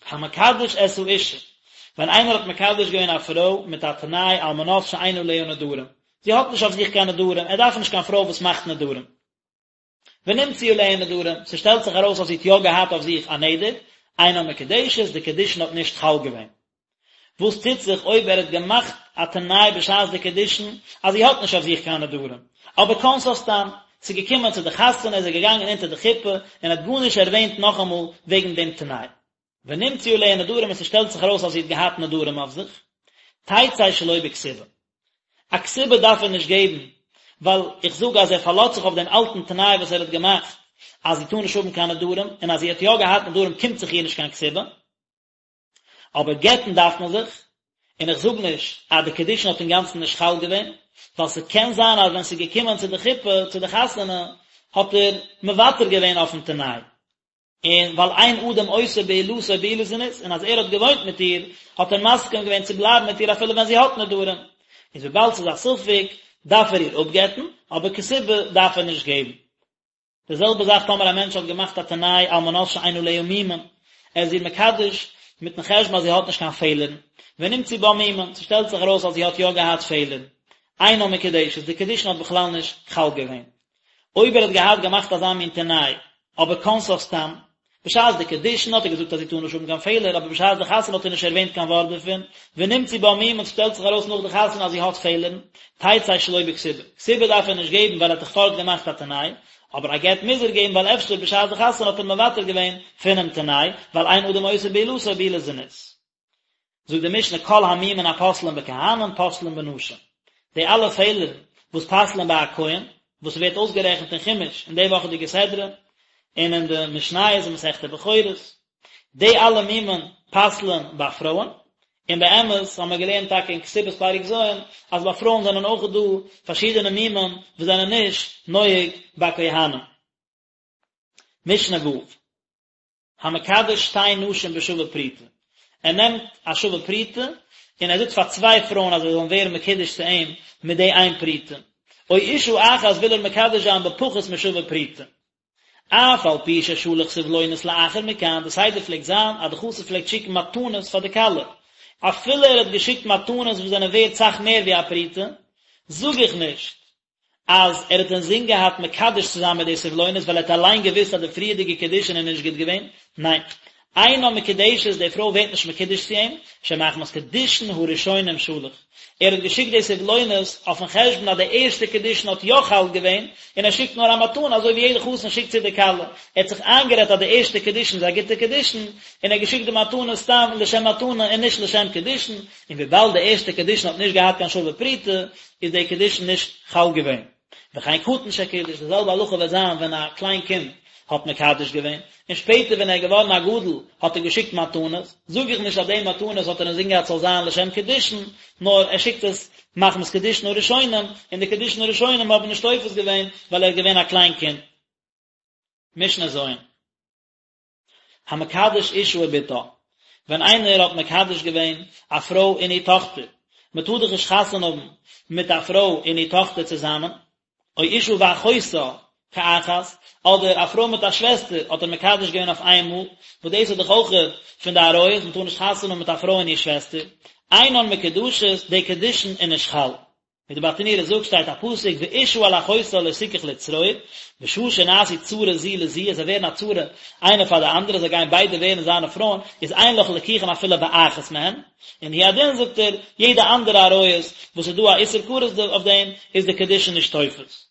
המקדש את האשה, ווען איינער האט מקדש געווען א פרוי מיט א תנאי על מנת שאין עליה נדרים, זי האט נישט אויף זיך קיין נדרים, ער דארף נישט קיין פרוי וואס מאכט נדרים. ונמצאו עליה נדרים, ס'שטעלט זיך ארויס אז זי האט יא געהאט אויף זיך א נדר, אינה מקודשת, די קידושין האט נישט חל געווען. וואס טוט זיך אויב ער האט געמאכט א תנאי בשעת די קידושין אז זי האט נישט אויף זיך קיין נדרים, אבער כונסה סתם, ס'איז געקומען צו די חתונה איז ער געגאנגען אונטער די חופה און האט גארנישט ערווענט נאכאמאל וועגן דעם תנאי. ונמצאו עליה נדרים און ס'שטעלט זיך ארויס אז זי האט געהאט נדרים אויף זיך, תצא שלא בכתובה. א כתובה דארף ער נישט געבן, ווייל איך זאג אז ער פארלאזט זיך אויף דעם אלטן תנאי וואס ער האט געמאכט אז זי טאר נישט האבן קיין נדרים, און אז זי האט יא געהאט נדרים קומט זיך איר נישט קיין כתובה. אבער גט'ן דארף מען זיך, און איך זאג נישט אז די קידושין האט אינגאנצן נישט חל געווען, ווייל ס'קען זיין אז ווען ס'איז געקומען צו די חופה, צו די חתונה, האט ער מוותר געווען אויפן תנאי. און ווייל אין אדם עושה בעילתו בעילת זנות, און אז ער האט געוואוינט מיט איר, האט ער מסכים געווען צו בלייבן מיט איר אפילו ווען זי האט נדרים. איז וויבאלד ס'איז א ספק, דארף ער איר אפגט'ן, אבער כתובה דארף ער נישט געבן. די זעלבע זאך טאמער א מענטש האט געמאכט א תנאי על מנת שאין עליה מומין, ער איז איר מקדש מיטן חשבון אז זי האט נישט קיין פעלערן. ונמצאו בה מומין, ס'שטעלט זיך ארויס אז זי האט יא געהאט פעלערן, אינה מקודשת, די קידושין האט בכלל נישט חל געווען. אויב ער האט געהאט געמאכט אזא מין תנאי, אבער כנסה סתם, בשעת די קידושין האט ער געזאגט אז זי טאר נישט האבן קיין פעלער, אבער בשעת די חתונה האט ער נישט ערווענט קיין ווארט דערפון, ונמצאו בה מומין און ס'שטעלט זיך ארויס נאך די חתונה אז זי האט פעלערן, תצא שלא בכתובה. כתובה דארף ער נישט געבן ווייל ער האט דאך פארט געמאכט א תנאי, אבער א גט מוז ער געבן ווייל אפשר בשעת די חתונה האט ער מוותר געווען פונעם תנאי, ווייל אין אדם עושה בעילתו בעילת זנות. זאגט די משנה כל המומין הפוסלין בכהנים פוסלין בנשים, די אלע פעלערן וואס פסל'ען ביי א כהן, וואס ווערט אויסגערעכנט אין חומש אין די וואכעדיגע סדרה, און אין די משניות אין מסכת בכורות, די אלע מומין פסל'ען ביי פרויען, און באמת האבן מיר געלערנט טאקע אין כתובות פרק ז' אז ביי פרויען זענען אויך דא פארשידענע מומין וואס זענען נישט נוהג ביי כהנים. משנה ו'. המקדש שתי נשים בשווה פרוטה, ער נעמט א שווה פרוטה און ער זאגט פאר צוויי פרויען אז זיי זאלן ווערן מקודש צו אים מיט די איין פרוטה, או אשה אחת וויל ער מקדש זיין בפחות משווה פרוטה. אף על פי ששלח סבלונות לאחר מכאן, די סדר פלעגט זיין אז די חתן פלעגט שיקן מתנות פאר די כלה, אפילו ער האט געשיקט מתנות וואס זענען ווערט סאך מער ווי א פרוטה, זאג איך נישט אז ער האט אינזין געהאט מקדש צו זיין מיט די סבלונות ווייל ער האט אליין געוואוסט אז די פריערדיגע קידושין איז נישט גוט געווען, ניין, אינה מקודשת, די פרוי ווערט נישט מקודש צו אים, שמחמת קידושין הראשונים שלח, ער האט געשיקט די סבלונות אויפן חשבון אז די ערשטע קידושין האט יא חל געווען, און ער שיקט נאר א מתנה אזוי ווי יעדע חתן שיקט צו די כלה, ער האט זיך איינגערעדט אז די ערשטע קידושין איז א גוטע קידושין, און ער האט געשיקט די מתנה סתם לשם מתנה און נישט לשם קידושין, און וויבאלד די ערשטע קידושין האט נישט געהאט קיין שווה פרוטה, איז די קידושין נישט חל געווען. וכן קטן שקידש, די זעלבע הלכה וועט זיין ווען א קליין קינד האט מקדש געווען, און שפעטער ווען ער איז געווארן א גדול האט ער געשיקט מתנות, זאג איך נישט אז די מתנות האט ער אינזין געהאט ס'זאל זיין לשם קידושין, נאר ער שיקט עס מחמת קידושין הראשונים, און די קידושין הראשונים האבן נישט תופס געווען ווייל ער איז געווען א קליין קינד. משנה ז'. המקדש אשה ובתה, ווען איינער האט מקדש געווען א פרוי און איר טאכטער, מען טאר דאך נישט חתונה האבן מיט א פרוי און איר טאכטער צוזאמען, או אשה ואחותה כאחת, אדער א פרוי מיט א שוועסטער האט ער מקדש געווען אויף איין מאל, וואס דאס איז דאך אויך פון די עריות, מען טאר נישט חתונה האבן מיט א פרוי און איר שוועסטער, אינן מקודשות, די קידושין איז נישט חל. ווי די ברטנורא זאגט שטייט א פסוק ואשה אל אחותה לא תקח לצרור, בשעה שנעשו צרה זו לזו, אז זיי ווערן א צרה איינע פאר די אנדערע, זיי גייען ביידע ווערן זיינע פרויען, איז אין לך ליקוחין אפילו באחת מהן, און הוא הדין זאגט ער, יעדע אנדערע עריות וואס איז דא א איסור כרת אויף דעם, איז די קידושין נישט תופס.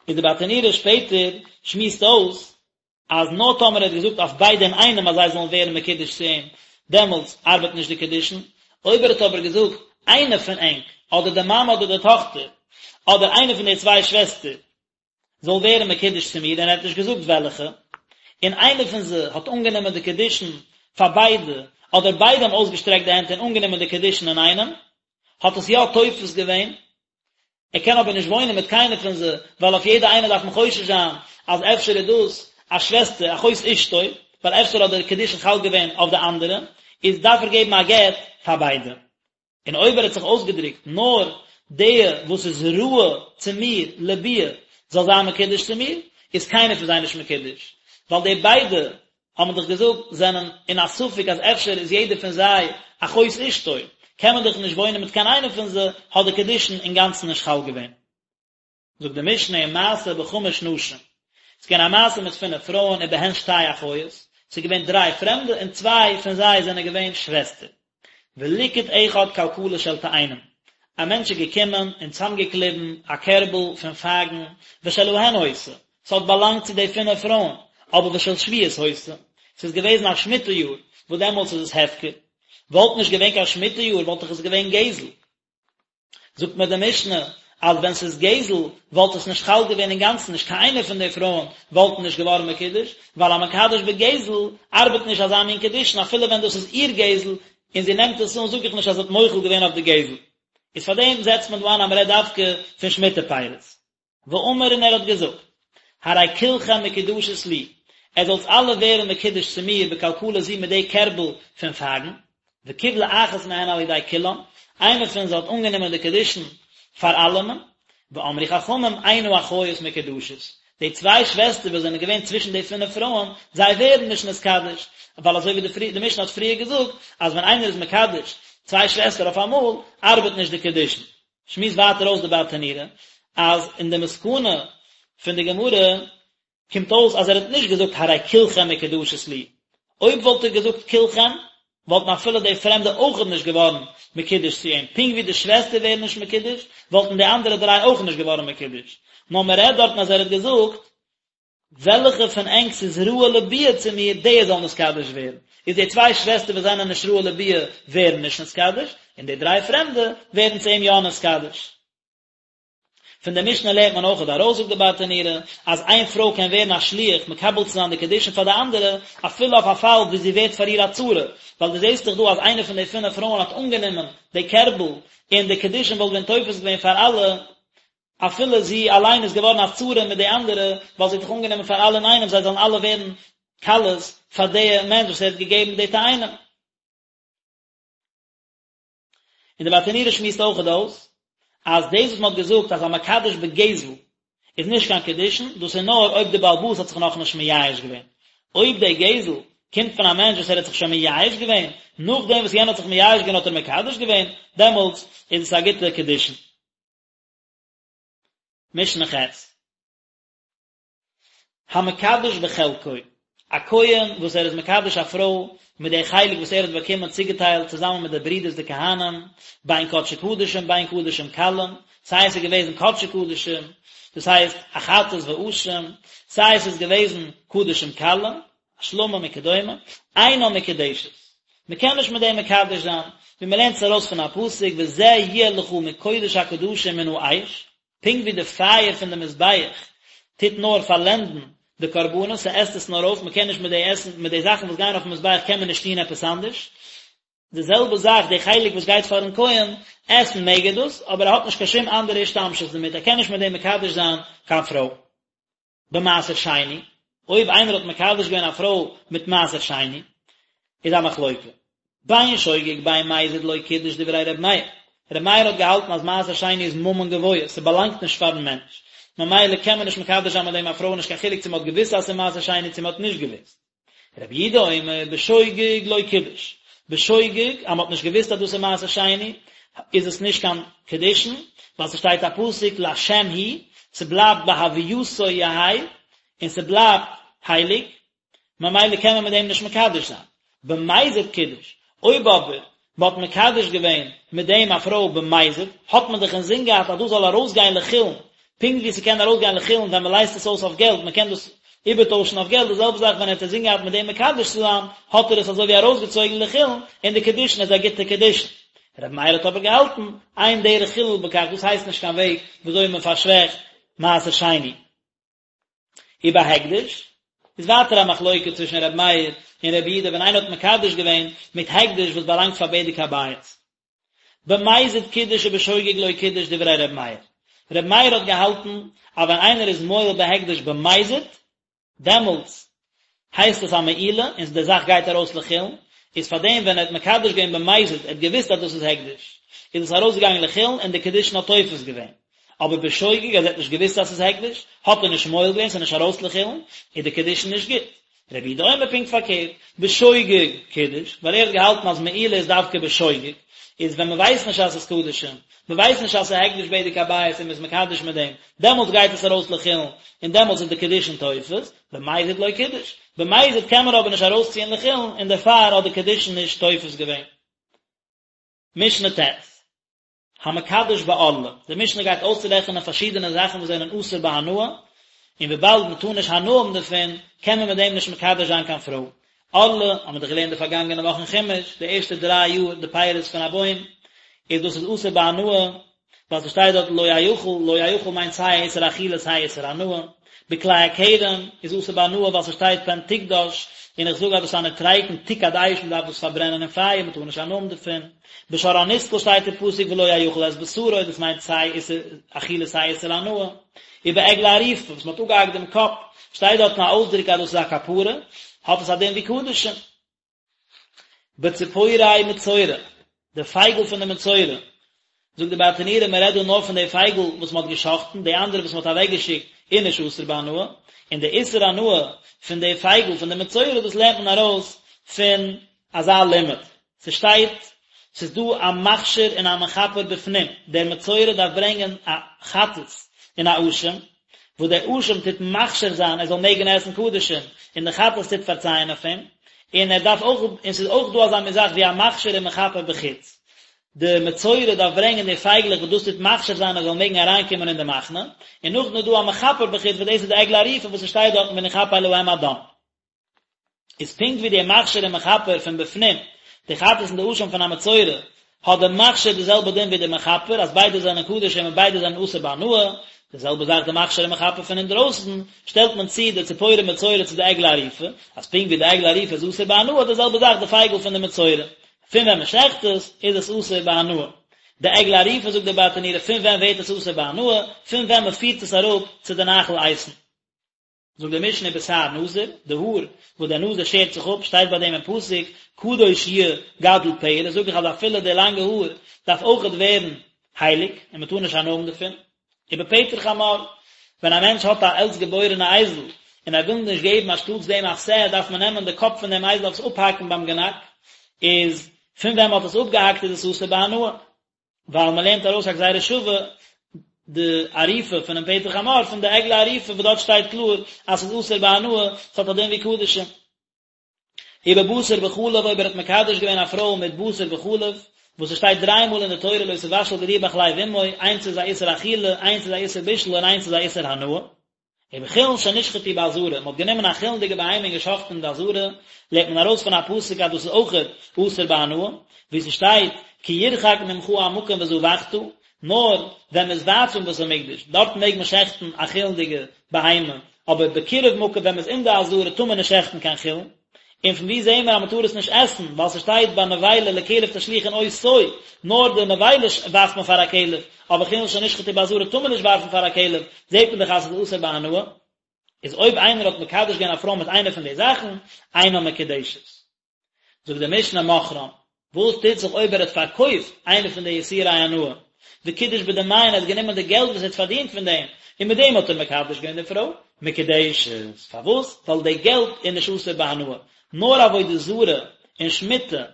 איז די ברטנורא שפעטער שמועסט אויס אז נאר טאמער ער האט געזאגט אויף ביידע אינאיינעם אז זיי זאלן ווערן מקודש צו אים, דעמאלטס ארבעט נישט די קידושין, אויב ער האט אבער געזאגט איינע פון ענק, אדער די מאמע אדער די טאכטער, אדער איינע פון די צוויי שוועסטער, זאל ווערן מקודש צו מיר, און ער האט נישט געזאגט וועלכע, און איינע פון זיי האט אנגענומען די קידושין פאר ביידע, אדער ביידע האבן אויסגעשטרעקט די הענט און אנגענומען די קידושין אינאיינעם, האט עס יא תופס געווען, ער קען אבער נישט וואוינען מיט קיינער פון זיי, ווייל אויף יעדע איינע דארף מען חושש זיין אז אפשר איז דאס א שוועסטער, אחות אשתו, ווייל אפשר האט דער קידושין חל געווען אויף די אנדערע, איז דארף ער געבן א גט פאר ביידע. און אויב ער האט זיך אויסגעדרוקט נאר די וואס איז ראוי צו מיר לביאה זאל זיין מקודש צו מיר, איז קיינער פון זיי נישט מקודש, ווייל די ביידע האט מען דאך געזאגט זענען אין א ספק אז אפשר איז יעדער פון זיי אחות אשתו, קען מען דאך נישט וואוינען מיט קיין איינער פון זיי, האט די קידושין אינגאנצן נישט חל געווען. זאגט די משנה ומעשה בחמש נשים, ס'איז געווען א מעשה מיט פינף פרויען ובהן שתי אחיות, ס'איז געווען דריי פרעמדע און צוויי פון זיי זענען געווען שוועסטער. וליקט אחד כלכלה של תאנים, א מענטש איז געקומען און צאמגעקליבן א קערבל פון פייגן, ושלהן היתה, ס'האט באלאנגט צו די פינף פרויען, אבער ושל שביעית היתה, ס'איז געוועזן א שמיטה יאר, וואס דעמאלטס איז עס הפקר, וואלט נישט געווען קיין שמיטה יאר וואלט דאך עס געווען גזל. זאגט מיר די משנה אז ווען ס'איז גזל וואלט עס נישט חל געווען אינגאנצן נישט קיין איינער פון די פרויען וואלטן נישט געווארן מקודש, ווייל המקדש בגזל ארבעט נישט אזא מין קידושין אפילו ווען דאס איז איר גזל און זי נעמט עס אן זאג איך נישט אז זי האט מוחל געווען אויף די גזל. איז פארדעם זעצט מען דא איין אז מ'רעדט דווקא פון שמיטה פירות. ואמר און ער האט געזאגט, הרי כולכם מקודשות לי, עטס זאלטס אלע ווערן מקודש צו מיר בכלכלה זו מיט די קערבל פון פייגן, וקיבלה אחת מהן על ידי כולן, איינע פון זיי האט אנגענומען די קידושין פאר אלעמען, ואמרו חכמים אין האחיות מקודשות, די צוויי שוועסטער וואס זענען געווען צווישן די פינף פרויען, זיי ווערן נישט נתקדש, ווייל אזוי ווי די משנה האט פריער געזאגט, אז ווען איינער איז מקדש צוויי שוועסטער אויף אמאל, ארבעט נישט די קידושין. שמועסט ווייטער אויס די ברטנורא, אז אין די מסקנא פון די גמרא קומט אויס אז ער האט נישט געזאגט הרי כולכם מקודשות לי, אויב וואלט ער געזאגט כולכם, וואלטן אפילו די פרעמדע אויכעט נישט געווארן מקודש צו אים, פונקט ווי די שוועסטער ווערן נישט מקודש, וואלטן די אנדערע דריי אויך נישט געווארן מקודש. נאר מען רעדט דארטן אז ער האט געזאגט, וועלכע פון ענק ס'איז ראוי לביאה צו מיר, די זאל נתקדש ווערן. איז די צוויי שוועסטער וואס זענען נישט ראוי לביאה ווערן נישט נתקדש, און די דריי פרעמדע ווערן צו אים יא נתקדש. פון די משנה לערנט מען אויכעט ארויס זאגט די ברטנורא אז איין פרוי קען ווערן א שליח מקבל צו זיין די קידושין פאר די אנדערע אפילו אויף א פאל ווי זי ווערט פאר איר א צרה, ווייל דו זעסט דאך דא אז איינע פון די פינף פרויען האט אנגענומען די קערבל און די קידושין וואלט ווען תופס געווען פאר אלע אפילו זי אליין איז געווארן א צרה מיט די אנדערע ווייל זי האט דאך אנגענומען פאר אלע אינאיינעם זיי זאלן אלע ווערן כלות פאר די מענטש וואס ער האט געגעבן די תאנים. און די ברטנורא שמועסט אויכעט אויס אז דאס וואס מען האט געזאגט אז המקדש בגזל איז נישט קיין קידושין, דאס איז נאר אויב די בעל הבית האט זיך נאכנישט מייאש געווען. אויב די גזל קומט פון א מענטש וואס ער האט זיך שוין מייאש געווען, נאכדעם וואס יענער האט זיך מייאש געווען האט ער מקדש געווען, דעמאלטס איז עס א גוטע קידושין. משנה ח'. המקדש בחלקו, א כהן וואס ער איז מקדש א פרוי מיט די חלק וואס ער האט באקומען צוגעטיילט צוזאמען מיט די ברידערס די כהנים, בין קדשי קדשים בין קדשים קלים, סיי עס איז געוועזן קדשי קדשים, דאס הייסט א חטאת ואשם, סיי עס איז געוועזן קדשים קלים, א שלמים וכדומה, אינה מקודשת. מען קען נישט מיט דעם מקדש זיין, ווי מען לערנט עס ארויס פון א פסוק וזה יהיה לך מקודש הקדשים מן האש, פונקט ווי די פייער פון די מזבח טוט נאר פארלענדן די קרבנות, ס'עסט עס נאר אויף, מ'קען נישט מיט די עסן, מיט די זאכן וואס גייען אויפן מזבח קען מען נישט טון עפעס אנדערש, די זעלבע זאך די חלק וואס גייט פארן כהן, עסן מעג ער דאס, אבער ער האט נישט קיין שום אנדערע השתמשות דערמיט, ער קען נישט מיט דעם מקדש זיין קיין פרוי. במעשר שני, אויב איינער האט מקדש געווען א פרוי מיט מעשר שני, איז א מחלוקה. בין שוגג בין מזיד לא קידש דברי ר' מאיר. ר' מאיר האט געהאלטן אז מעשר שני איז ממון גבוה, ס'באלאנגט נישט פארן מענטש, ממילא קען מען נישט מקדש זיין מיט דעם א פרוי נישט קיין חילוק צו מ'האט געוואוסט אז ס'איז מעשר שני צו מ'האט נישט געוואוסט. רבי יהודה אומר בשוגג לא קידש, בשוגג אז מ'האט נישט געוואוסט אז דאס איז מעשר שני איז עס נישט קיין קידושין, ווייל ס'שטייט א פסוק להשם הוא, ס'בלייבט בהווייתו יהא, און ס'בלייבט הייליג, ממילא קען מען מיט דעם נישט מקדש זיין. במזיד קידש, אויב אבער מען האט מקדש געווען מיט דעם א פרוי במזיד, האט מען דאך אינזין געהאט אז דאס זאל ארויסגיין לחולין, פונקט ווי ס'קען ארויסגיין לחולין ווען מען לייזט עס אויס אויף געלט, מען קען דאס איבערטוישן אויף געלט, די זעלבע זאך ווען ער האט אינזין געהאט מיט דעם מקדש צו זיין, האט ער עס אזוי ווי ארויסגעצויגן לחולין, און די קידושין איז א גוטע קידושין. רבי מאיר האט אבער געהאלטן, אין דרך חילול בכך, דאס הייסט נישט קיין וועג וויאזוי מען פארשוועכט מעשר שני. ובהקדש, איז ווייטער א מחלוקה צווישן ר' מאיר און ר' יהודה ווען איינער האט מקדש געווען מיט הקדש וואס באלאנגט פאר בדק הבית. במזיד קידש ובשוגג לא קידש דברי ר' מאיר. ר' מאיר האט געהאלטן אז ווען איינער איז מועל בהקדש במזיד, דעמאלטס הייסט עס א מעילה און די זאך גייט ארויס לחולין, איז פאר דעם ווען ער האט מקדש געווען במזיד, ער האט געוואוסט אז דאס איז הקדש, איז עס ארויסגעגאנגען לחולין און די קידושין האט תופס געווען. אבער בשוגג אז ער האט נישט געוואוסט אז ס'איז הקדש, האט ער נישט מועל געווען, ס'איז נישט ארויס לחולין, איז די קידושין נישט גוט. רבי יהודה אומר פונקט פארקערט, בשוגג קידש, ווייל ער האט געהאלטן אז מעילה איז דווקא בשוגג, איז ווען מ'ווייסט נישט אז ס'איז קדשים, מ'ווייסט נישט אז ס'איז הקדש בדק הבית און מ'איז מקדש מיט דעם, דעמאלטס גייט עס ארויס לחולין, און דעמאלטס איז די קידושין תופס, במזיד לא קידש. במזיד קען מען אבער נישט ארויסציען לחולין, און דערפאר האט די קידושין נישט תופס געווען. משנה ט'. המקדש בערלה, די משנה גייט אויסרעכענען פארשידענע זאכן וואס זענען אסור בהנאה, און וויבאלד מען טאר נישט הנאה האבן דערפון, קען מען מיט דעם נישט מקדש זיין קיין פרוי. ערלה, האבן מיר דאך געלערנט די פארגאנגענע וואך אין חומש, די ערשטע דריי יאר די פירות פון א בוים, איז דאס איז אסור בהנאה, ווייל ס'שטייט דארט לא יאכל, לא יאכל מיינט סיי א איסור אכילה סיי א איסור הנאה. בכלאי הכרם איז אסור בהנאה ווייל ס'שטייט פן תקדש, און איך זאג אז דאס איז א נוטריקון תוקד אש מ'דארף דאס פארברענען אין פייער מ'טאר נישט הנאה האבן דערפון. בשור הנסקל שטייט אין פסוק ולא יאכל את בשרו דאס מיינט סיי איסור אכילה סיי איסור הנאה. ובעגלה ערופה וואס מ'האט אפגעהאקט דעם קאפ שטייט דארטן א אויסדרוק אז דאס איז א כפרה, האט עס א דין ווי קדשים. בציפורי מצורע, די פייגל פון די מצורע, זאגט די ברטנורא מען רעדט דא נאר פון די פייגל וואס מען האט געשחט'ן, די אנדערע וואס מען האט אוועק געשיקט איז נישט אסור בהנאה, און די איסור הנאה פון די פייגל פון די מצורע דאס לערנט מען ארויס פון אזא לימוד. ס'שטייט, ס'איז דא א מכשיר און א מכפר בפנים, דער מצורע דארף ברענגען א חטאת און א אשם, וואס דער אשם טוט מכשיר זיין ער זאל מעגן עסן קדשים, און די חטאת טוט פארצייען אויף אים, און ער דארף אויך, און ס'איז אויך דא אזא מין זאך ווי א מכשיר און מכפר בחוץ, די מצורע דארף ברענגען די פייגלעך וואס דאס טוט מכשיר זיין ער זאל מעגן אריינקומען אין די מחנה, און נאכדעם איז דא א מכפר בחוץ וואס דאס איז די עגלה ערופה וואס ס'שטייט דארטן ונכפר להם הדם. איז פונקט ווי די מכשיר און מכפר פון בפנים, די חטאת און די אשם פון א מצורע, האט די מכשיר די זעלבע דין ווי די מכפר, אז ביידע זענען קדשים און ביידע זענען אסור בהנאה, די זעלבע זאך די מכשיר און מכפר פון אינדרויסן, שטעלט מען צו די ציפורי מצורע צו די עגלה ערופה, אז פונקט ווי די עגלה ערופה איז אסור בהנאה, די זעלבע זאך די פייגל פון די מצורע, פון ווען מען שעכט עס, איז עס אסור בהנאה. די עגלה ערופה זאגט דער ברטנורא פון ווען ווערט עס אסור בהנאה, פון ווען מען פירט עס אראפ צו די נחל איתן. זאגט די משנה ובשער נזיר, די האר וואס דער נזיר שערט זיך אפ, שטייט ביי דעם אין פסוק, קדוש יהיה גדל פרע, זאג איך אז אפילו די לאנגע האר דארף אויכעט ווערן הייליג, און מען טאר נישט הנאה האבן דערפון. ובפטר חמור, ווען א מענטש האט א עלטסט געבוירענע אייזל, און ער וויל נישט געבן אנשטאטס דעם א שה, דארף מען נעמען די קאפ פון דעם אייזל אויף עס אפהאקן ביים גענאק, איז פון ווען מען האט עס אפגעהאקט איז עס אסור בהנאה. ווייל מען לערנט ארויס א גזירה שווה די עריפה פונעם פטר חמור פון די עגלה ערופה וואס דארט שטייט קלאר אז ס'איז אסור בהנאה, ס'האט א דין ווי קדשים. ובבשר בחלב אויב ער האט מקדש געווען א פרוי מיט בשר בחלב, וואס עס שטייט דריי מאל אין די תורה לא תבשל גדי בחלב אמו, איינס איז א איסור אכילה, איינס איז א איסור בישול און איינס איז א איסור הנאה. ובחולין שנשחטו בעזרה, מען האט גענומען א חולין'דיגע בהמה און געשחט'ן אין די עזרה, לערנט מען ארויס פון א פסוק אז דאס איז אויכעט אסור בהנאה, ווי ס'שטייט כי ירחק ממך המקום וזבחת, נאר ווען מ'איז ווייט פון בית המקדש, דארט מעג מען שעכטן א חולין'דיגע בהמה, אבער בקירוב מקום ווען מ'איז אין די עזרה טאר מען נישט שעכטן קיין חולין. און פון וואו זעהן מיר אז מ'טאר עס נישט עסן, ווייל ס'שטייט ביי נבילה לכלב תשליכון אותו, נאר די נבילה ווארפט מען פאר א כלב, אבער חולין שנשחטו בעזרה טאר מען נישט ווארפן פאר א כלב, זעהט מען דאך אז ס'איז אסור בהנאה. איז אויב איינער האט מקדש געווען א פרוי מיט איינע פון די זאכן, אינה מקודשת. זאגט די משנה מכרם, וואס טוט זיך אויב ער האט פארקויפט איינע פון די איסורי הנאה, וקידש בדמיהן, ער האט גענומען די געלט וואס ער האט פארדינט פון דעם, און מיט דעם האט ער מקדש געווען די פרוי, מקודשת, פארוואס? ווייל די געלט איז נישט אסור בהנאה, נאר עבודה זרה און שמיטה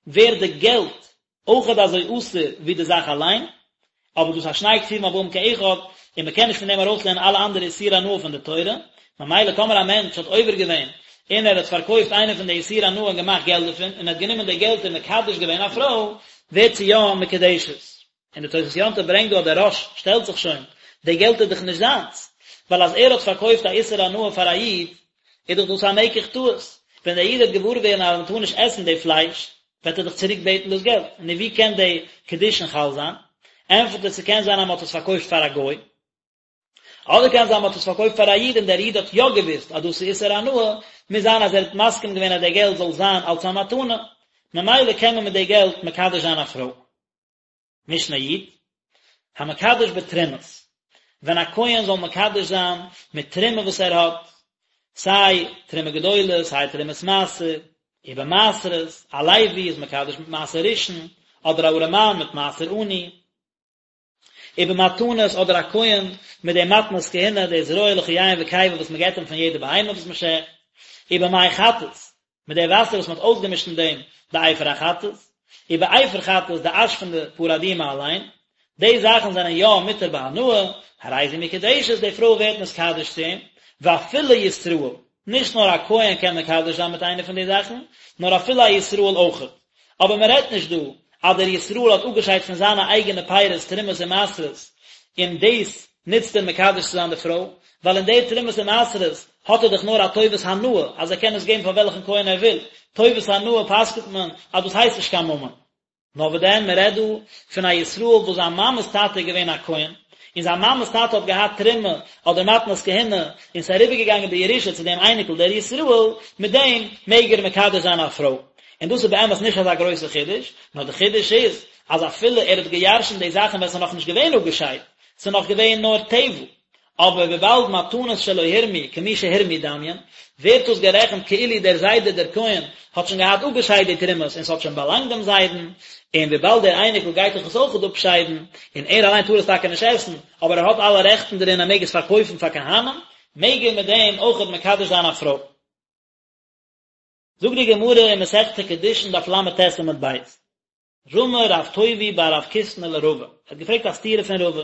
ווערט די געלט אויכעט אזוי אסור ווי די זאך אליין, אבער דאס איז שני כתובים הבאים כאחד, און מען קען נישט פון דעם ארויסלערנען אלע אנדערע איסורי הנאה פון די תורה, ממילא טאמער א מענטש האט עובר געווען און ער האט פארקויפט איינע פון די איסורי הנאה און געמאכט געלט דערפון, און ער האט גענומען די געלט און מקדש געווען א פרוי, ווערט זי יא מקודשת. און די תוספות יום טוב ברענגט דא אז דער רא"ש שטעלט זיך שוין, די געלט איז דאך נישט זיינס, ווייל אז ער האט פארקויפט א איסור הנאה פאר א איד, איז דאך דאס א מקח טעות, ווען דער איד וועט געוואר ווערן אז מען טאר נישט עסן די פלייש, וועט ער דאך צוריק בעטן דאס געלט, נו ווי קען די קידושין חל זיין? ענטפערט ער ס'קען זיין אז מ'האט עס פארקויפט פאר א גוי, אדער קען זיין מ'האט עס פארקויפט פאר א איד און דער איד האט יא געוואוסט אז דאס איז איסור הנאה, מוז זיין אז ער האט מסכים געווען אז די געלט זאל זיין אלס א מתנה, ממילא קען מען מיט די געלט מקדש זיין א פרוי. משנה י', המקדש בתרומות, ווען א כהן זאל מקדש זיין מיט תרומה וואס ער האט, סיי תרומה גדולה סיי תרומת מעשר, ובמעשרות, א לוי איז מקדש מיט מעשר ראשון, אדער א ארעמאן מיט מעשר עני, ובמתנות אדער א כהן מיט די מתנות כהונה, די זרוע לחיים וקיבה וואס מען געבט אים פון יעדע בהמה וואס מען שעכט, ובמי חטאת, מיט די וואסער וואס מען האט אויסגעמישט אין דעם די אפר החטאת, ובאפר חטאת די אש פון די פרה אדומה אליין, די זאכן זענען יא מותר בהנאה, הרי זו מקודשת, די פרוי ווערט נתקדש צו אים, ואפילו ישראל, נישט נאר א כהן קען מקדש זיין מיט איינע פון די זאכן, נאר אפילו א ישראל אויכעט. אבער מען רעדט נישט דא אז דער ישראל האט אפגעשיידט פון זיינע אייגענע פירות תרומות און מעשרות, און דאס נוצט ער מקדש צו זיין די פרוי, ווייל אין די תרומות און מעשרות האט ער דאך נאר א טובת הנאה אז ער קען עס געבן פאר וועלכן כהן ער וויל, טובת הנאה פסק'נט מען אז דאס הייסט נישט קיין ממון. נאר וואס דען, מען רעדט דא פון א ישראל וואס זיין מאמע'ס טאטע איז געווען א כהן, און זיין מאמע'ס טאטע האט געהאט תרומה אדער מתנות כהונה, און ס'איז אריבערגעגאנגען בירושה צו דעם אייניקל דער ישראל, מיט דעם מעג ער מקדש זיין א פרוי. און דאס איז באמת נישט אזא גרויסע חידוש, נאר די חידוש איז, אז אפילו ער האט געירשנט די זאכן ווען ס'איז נאכנישט געווען אפגעשיידט, ס'איז נאך געווען נאר טבל, אבער וויבאלד מתנות שלא הורמו כמי שהורמו דמיין, ווערט דאס גערעכנט כאילו דער זיידע דער כהן האט שוין געהאט אפגעשיידט די תרומות און ס'האט שוין באלאנגט דעם זיידן, און וויבאלד דער אייניקל גייט דאך עס אויכעט אפשיידן, און ער אליין טאר עס טאקע נישט עסן, אבער ער האט אלע רעכטן דערין ער מעג עס פארקויפן פאר כהנים, מעג ער מיט דעם אויכעט מקדש זיין א פרוי. זאגט די גמרא אין מסכת קידושין דף ל"ט עמוד ב', רמי רב טובי בר רב קיסנא לרבא, ער האט געפרעגט א סתירה פון רבא,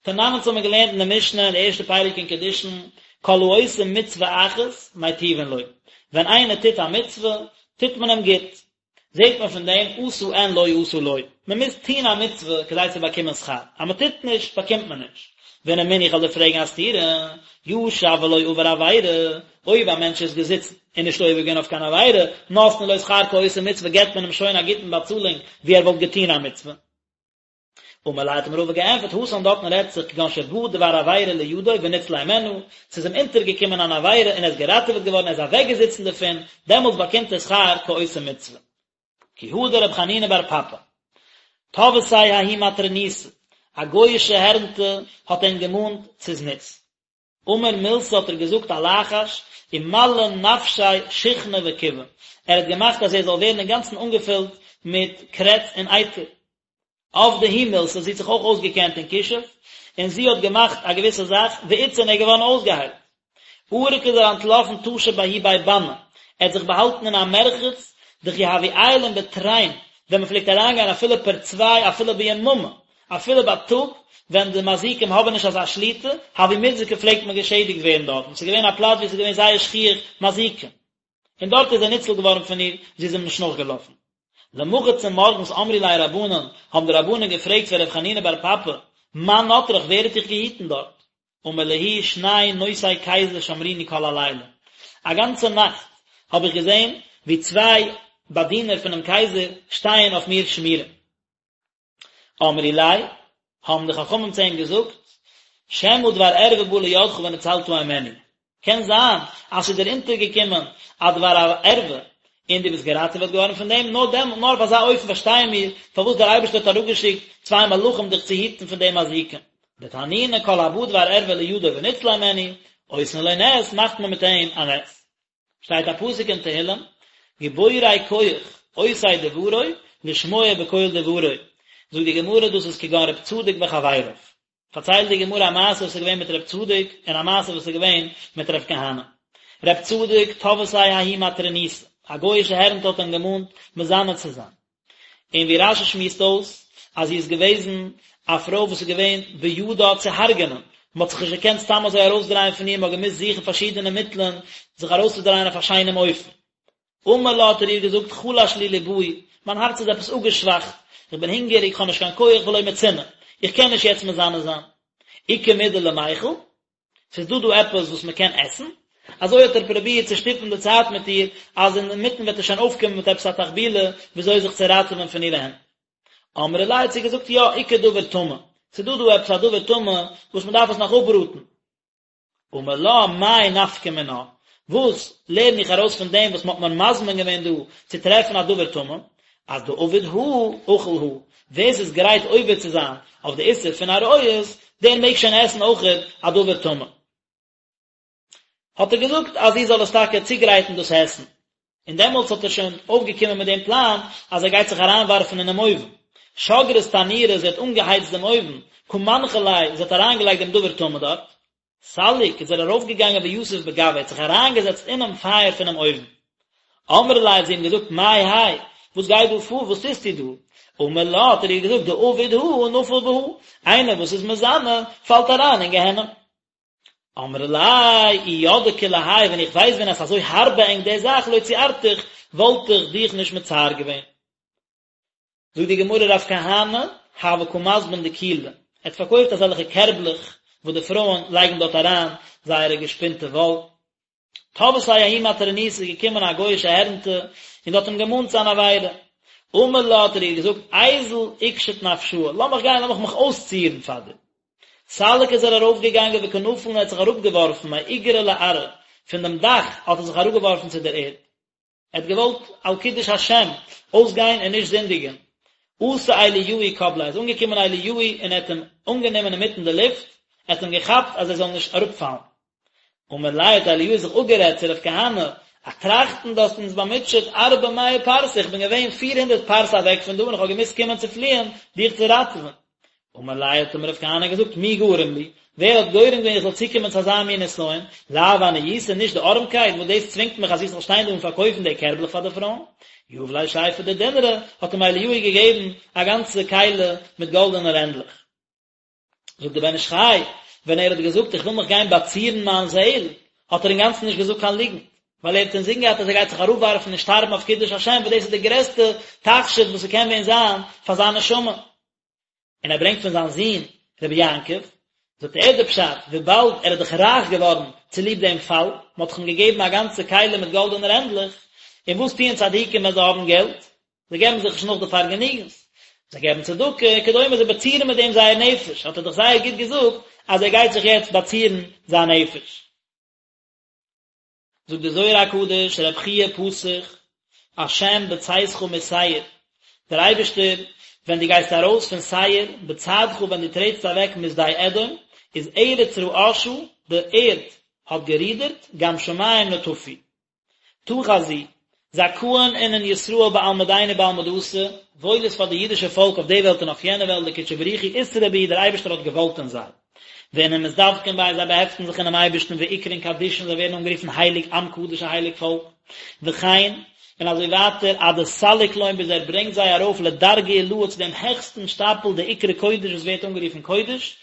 תנן אונז האבן מיר געלערנט אין די משנה אין די ערשטע פרק אין קידושין, כל העושה מצוה אחת מיטיבין לו, ווען איינער טוט א מצוה, טוט מען אים גוט, זעט מען פון דעם עשה אין לא עשה לא, מען מוז טון א מצוה כדי צו באקומען שכר, אז מען טוט נישט באקומט מען נישט. ורמינהו איך וועל דיר פרעגן א סתירה, ישב ולא עבר עבירה, אויב א מענטש איז געזיצן און נישט עובר געווען אויף קיין עבירה, נותנין לו שכר כעושה מצוה געבט מען אים שוין א גוטן באצאלונג ווי ער וואלט געטון א מצוה. אמר ליה האט אים רבא געענטפערט, התם דארטן רעדט זיך כגון שבא דבר עבירה לידו וניצל הימנה, ס'איז אים אונטערגעקומען אן עבירה און ער איז געראטעוועט געווארן ער איז אוועקגעזיצן דערפון, דעמאלטס באקומט ער שכר כעושה מצוה. כי הא דרב חנינא בר פפא, תבעתיה ההיא מטרוניתא, א גוי'אישע הערנטע האט אים געמאנט צו זנות. אמר מילתא האט ער געזאגט א לחש, ומלי נפשיה שיחנא וכיבא, ער האט געמאכט אז ער זאל ווערן אינגאנצן אנגעפילט מיט קרעץ און אייטער. עבדה היא מילתא, זי האט זיך אויך אויסגעקענט אין כישוף, און זי האט געמאכט א געוויסע זאך, ואיתסי און ער איז געווארן אויסגעהיילט. ערק איז ער אנטלאפן טשא בההוא בי באני, ער האט זיך באהאלטן אין א מרחץ, דכי הוו עיילין בתרין, ווען מען פלעגט אריינגיין אפילו פערצוויי אפילו ביממא, אפילו בייטאג, ווען די מזיקים האבן נישט אזא שליטה, הוו מיתזקי פלעגט מען געשעדיגט ווערן דארטן, ס'איז געווען א פלאץ וואו ס'איז געווען זייער שכיח מזיקים. און דארט איז ער ניצול געווארן פון איר, זי איז אים נישט נאכגעלאפן. למחר צומארגנס אמרו ליה רבנן, האבן די רבנן געפרעגט פון ר' חנינא בר פפא, מאן נטרך ווער האט דיך געהיטן דארט? אמר להו שני נושאי קיזר שמרוני כל הלילה, א גאנצע נאכט האב איך געזען ווי צוויי באדינער פונעם קייזער שטייען אויף מיר שמירה. אמרו ליה, האבן די חכמים צו אים געזאגט, שמא דבר ערווה בא לידך וניצלת הימנו, קען זיין אז ס'איז דיר אונטערגעקומען א דבר ערווה און דו ביסט געראטעוועט געווארן פון דעם, נאר דעמאלט, נאר אויף אזא אופן פארשטייען מיר פארוואס דער אייבערשטער האט אראפגעשיקט צוויי מלאכים דיך צו היטן פון די מזיקים. דתנינא כל הבא דבר ערווה לידו וניצל הימנו, עושין לו נס, מאכט מען מיט אים א נס. שטייט א פסוק אין תהילים, גיבורי כח עושי דברו לשמוע בקול דברו, זאגט די גמרא דאס איז כגון רב צדוק וחבריו, פארציילט די גמרא א מעשה וואס איז געווען מיט רב צדוק און א מעשה וואס איז געווען מיט רב כהנא. רב צדוק תבעתיה ההיא מטרוניתא, א גוי'אישע הערנטע האט אים געמאנט מזנה צו זיין, און ווי רש"י שמועסט אויס אז זי איז געוועזן א פרוי וואס איז געווען בידה צו הרג'נען, מען האט זיך נישט געקענט סתם אזוי ארויסדרייען פון איר, מען האט געמוזט זוכן פארשידענע מיטלען זיך ארויסצודרייען אויף א שיינעם אופן. אמר לה האט ער איר געזאגט חלש לי לבאי, מיין הארץ איז עפעס אפגעשוואכט, איך בין הונגעריג, איך האב נישט קיין כח ולא מצינא, איך קען נישט יעצט מזנה זיין. איכא מידי למיכל? ס'איז דא דא עפעס וואס מען קען עסן? אזוי האט ער פרובירט צו שטופן די צייט מיט איר, אז אינמיטן וועט ער שוין אויפקומען מיט עפעס א תחבולה וויאזוי זיך צו ראטעווען פון אירע הענט. אמרה ליה האט זי געזאגט יא, איכא דבר טמא, ס'איז דא דא עפעס א דבר טמא וואס מען דארף עס נאך אפבראטן. אמר לה מאי נפקא מינה, וואס לערן איך ארויס פון דעם וואס מען האט מיר מזמין געווען דא צו טרעפן א דבר טמא, אז דעביד הא אכיל הא, ווער ס'איז גרייט עובר צו זיין אויף די איסור פון עריות, דער מעג שוין עסן אויכעט א דבר טמא. האט ער געזאגט אז זי זאל עס טאקע צוגרייטן דאס עסן, און דעמאלטס האט ער שוין אויפגעקומען מיט דעם פלאן אז ער גייט זיך אריינווארפן אינעם אויוון. שגרת תנורא, זי האט אנגעהייצט דעם אויוון, קא מנחא ליה, זי האט אריינגעלייגט דעם דבר טמא דארט. סליק, איז ער ארויפגעגאנגען ויתיב בגויה, ער האט זיך אריינגעזעצט אינעם פייער פונעם אויוון. אמרה ליה האט זי אים געזאגט, מאי האי, וואס גייט דא פאר, וואס טוסטו דא? אמר לה, האט ער איר געזאגט, דעביד הא נפיל בהא, איינער וואס איז מזנה, פאלט אריין אין גיהנום. אמרה ליה, אי ידעי כולי האי, ווען איך ווייס ווען אז ס'אזוי הארב ביי ענק די זאך, לא ציערתיך, וואלט איך דיך נישט מצער געווען. זאגט די גמרא רב כהנא הוה קא מזבין דיקולי, ער האט פארקויפט אזעלכע קערבלעך וואס די פרויען לייגן דארט אריין זייערע געשפינטע וואל. תבעתיה ההיא מטרוניתא איז געקומען א גוי'אישע הערנטע און האט אים געמאנט צו אן עבירה. אמר לה האט ער איר געזאגט איזיל איקשיט נפשאי, לאמיך גיין לאמיך מיך אויסצירן פאר דיר. סליק איז ער ארויפגעגאנגען וקא נפיל און ער האט זיך אראפגעווארפן מאיגרא לארעא, פון דעם דאך האט ער זיך אראפגעווארפן צו דער ערד. ער האט געוואלט על קידוש השם אויסגיין און נישט זינדיגען. אתא אליהו קבליה, איז אנגעקומען אליהו און ער האט אים אנגענומען אינמיטן די לופט, ער האט אים געכאפט אז ער זאל נישט אראפפאלן. אמר ליה האט אליהו זיך אפגערעדט צו רב כהנא, א טראכטן דו האסט אונז באמוטשעט ארבע מאה פרסה, איך בין געווען פיר הונדערט פרסה אוועק פון דא און איך האב געמוזט קומען צו פליען דיך צו ראטעווען. אמר ליה האט אים רב כהנא געזאגט מי גרם לי, ווער האט גורם געווען איך זאל צוקומען צו אזא מין נסיון, לאו עניותא נישט די ארעמקייט וואס דאס צווינגט מיך אז איך זאל שטיין דא און פארקויפן די קערבלעך פאר די פרויען. יהב ליה שיפא דדינרי, האט אים אליהו געגעבן א גאנצע כלי מיט גאלדענע רענדלעך. זאגט דער בן איש חי, ווען ער האט געזאגט איך וויל מיך גיין באצירן מיין זעהל, האט ער אינגאנצן נישט געזאגט קיין ליגנט, ווייל ער האט אינזין געהאט אז ער גייט זיך אראפווארפן און שטארבן אויף קידוש השם, וואס דאס איז די גרעסטע תכשיט וואס ס'קען ווען זיין פאר זיין נשמה. און ער ברענגט פון זיין זון רבי יעקב, זאגט ער די פשט, וויבאלד ער איז דאך רייך געווארן צוליב דעם פאל, מען האט דאך אים געגעבן א גאנצע כלי מיט גאלדענע רענדלעך, און וואס טוען צדיקים ווען זיי האבן געלט? זיי געבן זיך נישט נאך די פארגעניגנס, זיי געבן צדקה וכדומה, זיי באצירן מיט דעם זייער נפש, האט ער דאך זייער גוט געזאגט אז ער גייט זיך יעצט באצירן זיין נפש. זאגט דער זוהר הקדוש, רב חייא פתח, השם בצאתך משעיר, דער אייבערשטער, ווען דו גייסט ארויס פון שעיר, בצעדך ווען דו טרעטסט אוועק משדה אדום, איז ארץ רעשה, די ערד האט גערודערט, גם שמים נטפו. תא חזי, זכאין אינון ישראל בעלמא דין ובעלמא דאתי, וואויל איז פאר די אידישע פאלק אויף די וועלט און אויף יענע וועלט דקודשא בריך הוא אתרעי בהו דער אייבערשטער האט געוואלט אין זיי. ואינון מתדבקין ביה זיי באהעפטן זיך אינעם אייבערשטן ואקרון קדישין זיי ווערן אנגערופן הייליג עם קדוש א הייליג פאלק. וכן, און אזוי ווייטער עד דסליק לון ביז ער ברענגט זיי ארויף לדרגא עילאה צו דעם העכסטן שטאפל דאקרי קודש וואס ווערט אנגערופן קודש,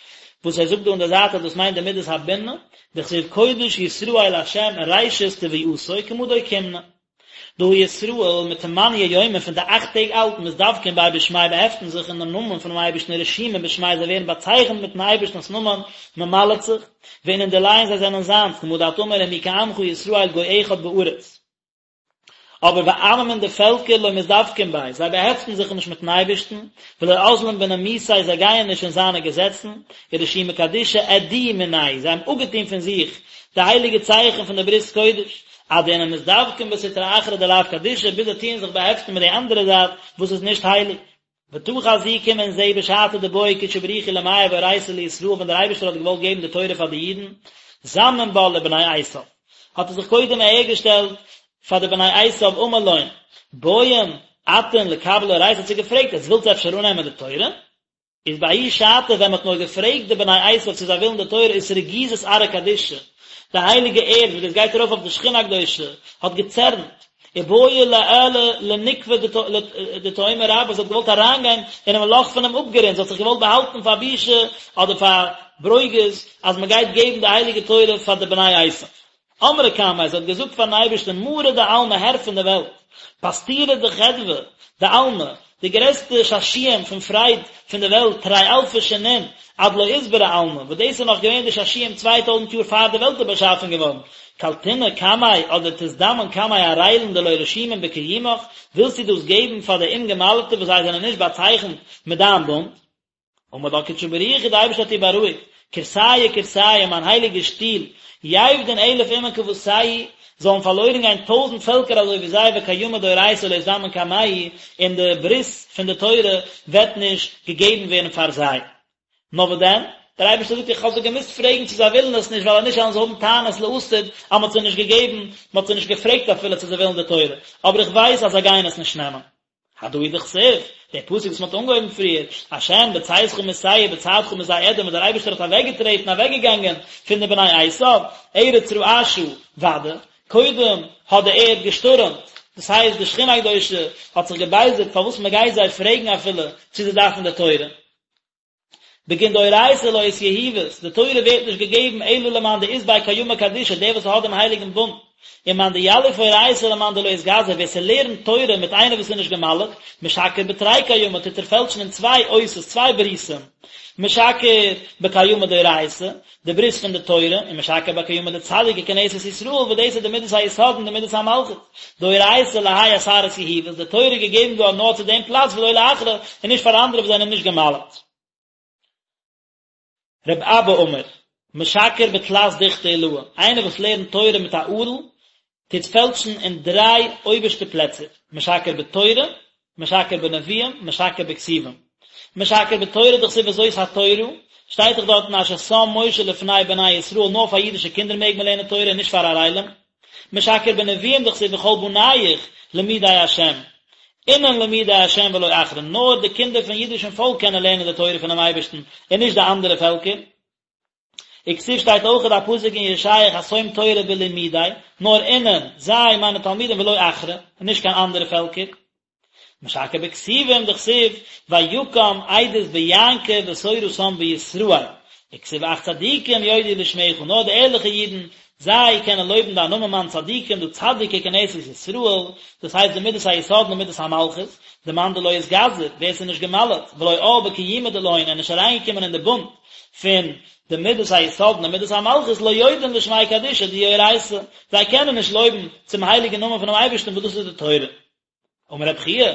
וואס ער זאגט דא אין די זייט אז דאס מיינט די מידת הבינה, דכתיב קודש ישראל לה' ראשית תבואתו כמה דאוקימנא. דהא ישראל מתמניא יומין פון די אכט טעג אלט מתדבקין ביה בשמיה באהעפטן זיך אין דעם נאמען פונעם אייבערשטן ורשימין בשמיה זיי ווערן באצייכנט מיטן אייבערשטנ'ס נאמען מ'מל'ט זיך, ואינון דיליה זיי זענען זיינס כמה דאת אמר ומי כעמך ישראל גוי אחד בארץ. אבער ועממין די פעלקער לא מתדבקין ביה, זיי באהעפטן זיך נישט מיטן אייבערשטן, ולא אזלין בנימוסיה זיי גייען נישט אין זיינע געזעצן, ורשימי קדישא אדיאו מינייהו, זיי האבן אפגעטון פון זיך די הייליגע צייכן פון די ברית קודש, עד דאינון מתדבקין בסטרא אחרא דלאו קדישא, ביז זיי טוען זיך באהעפטן מיט די אנדערע זייט וואס איז נישט הייליג. ותא חזי קום און זעה בשעתא דבעי קודשא בריך הוא למיהב אורייתא לישראל ווען דער אייבערשטער האט געוואלט געבן די תורה פאר די אידן, זמין בה לבני עשיו, האט ער זיך קודם אהערגעשטעלט פאר די בני עשיו אמר לון, בעיין אתון לקבלא אורייתא האט זיי געפרעגט עטס ווילטס אפשר אננעמען די תורה? איז בההיא שעתא ווען מ'האט נאר געפרעגט די בני עשיו צו זיי ווילן די תורה איז אתרגיזת ארעא קדישא, די הייליגע ערד וואס דאס גייט ארויף אויף די שכינה הקדושה, האט געצערנט, ובעיא לאעלא לנוקבא דתהומא רבה, זי האט געוואלט אריינגיין אינעם לאך פונעם אפגרונט, זי האט זיך געוואלט באהאלטן פאר בושה אדער פאר ברוגז אז מ'גייט געבן די הייליגע תורה פאר די בני עשיו. אמרה קמיה, זי האט געזאגט פארן אייבערשטן, מרא דעלמא, הער פון די וועלט, פסטירא דחדוה דעלמא, די גרעסטע שעשועים פון פרייד פון די וועלט, תרי אלפי שנין, עד לא אתברא עלמא, וואס דאס איז נאך געווען די שעשועים 2000 יאר פאר די וועלט איז באשאפן געווארן, קלתינא קמיה אדער תזדמן קמי ערילין דלא רשימין בקיומך, ווילסטו דאס געבן פאר די אומגעמל'טע וואס זיי זענען נישט באצייכנט מיט דיין בונד? אמר לה קודשא בריך הוא, די אייבערשטער האט איר בארואיגט, כורסיא כורסיא, מיין הייליגע שטול, יאבדון אלף אומין כוותייהו, זאלן פארלוירן גיין טויזנט פעלקער אזוי ווי זיי, וקיימא דאורייתא לא יזדמן קמייהו, און די ברית פון די תורה וועט נישט געגעבן ווערן פאר זיי. נאר וואס דען? דער אייבערשטער זאגט, איך האב זיי געמוזט פרעגן צו זיי ווילן עס נישט, ווייל אז נישט וועלן זיי האבן טענות לעתיד אז מען האט זיי נישט געגעבן, מען האט זיי נישט געפרעגט אפילו צו זיי ווילן די תורה, אבער איך ווייס אז זיי גייען עס נישט נעמען. הדא הוא דכתיב, דער פסוק וואס מען האט אנגעהויבן פריער, השם בצאתך משעיר בצעדך משדה אדום וואס דער אייבערשטער האט אוועקגעטרעטן אוועקגעגאנגען פון די בני עשיו, ארץ רעשה, ודאי, קודם האט די ערד געשטורעמט, דאס הייסט די שכינה הקדושה האט זיך געבייזערט פארוואס מען גייט זיי פרעגן אפילו צו זיי דארפן די תורה. בגין דאורייתא לא אתיהיבת, די תורה ווערט נישט געגעבן אלא למאן דאית ביה קיימא קדישא, דער וואס האט דעם הייליגן בונד, ומאן דיליף אורייתא למאן דלא אתגזי, ווער ס'לערנט תורה מיט איינער וואס איז נישט גע'מל'ט, משקר בתרי קיימא, טוט ער פעלטשן אין צוויי אותות, צוויי ברית'ן, משקר בקיימא דאורייתא, די ברית פון די תורה, ומשקר בקיימא דצדיק ככנסת ישראל, וואס דאס איז די מידת היסוד און די מידת המלכות. דאורייתא להאי אתר אתיהיבת, די תורה איז געגעבן געווארן נאר צו דעם פלאץ ולא לאחרא, און נישט פאר אנדערע וואס זענען נישט גע'מל'ט. רב אבא אמר, משקר בתלת דוכתי עילאי, איינער וואס לערנט תורה מיט א ערל, טוט פעלטשן אין דריי אויבערשטע פלעצער, משקר בתורה, משקר בנביאים, משקר בכתובים. משקר בתורה דכתיב וזאת התורה, שטייט דאך דארטן אשר שם משה לפני בני ישראל נאר פאר אידישע קינדער מעג מען לערנען תורה און נישט פאר ערלים. משכר בנביאים דכתיב וכל בניך למודי השם, אינון למודי השם ולא אחרין, נאר די קינדער פון אידישן פאלק קענען לערנען די תורה פונעם אייבערשטן און נישט די אנדערע פעלקער. וכתיב שטייט אויכעט א פסוק אין ישעיה חתום תורה בלמודי, נאר אינון, זיי, מיינע תלמידים ולא אחרי, און נישט קיין אנדערע פעלקער. משכר בכתובים דכתיב ויקם עדות ביעקב ותורה שם בישראל, וכתיב אך צדיקים יודו לשמך, נאר די ערליכע אידן, זיי קענען לויבן דיין נאמען מאן צדיקים דא צדיקי כנסת ישראל, דאס הייסט די מידת היסוד און די מידת המלכות, דמאן דלא אתגזר, ווער ס'איז נישט גע'מל'ט, ולא עאל בקיומא דלהון, און נישט אריינגעקומען אין די בונד פון די מידת היסוד און די מידת המלכות, לא יודון לשמיה קדישא דאיהי אורייתא, זיי קענען נישט לויבן צום הייליגן נאמען פונעם אייבערשטן וואס דאס איז די תורה. אמר רבי חייא,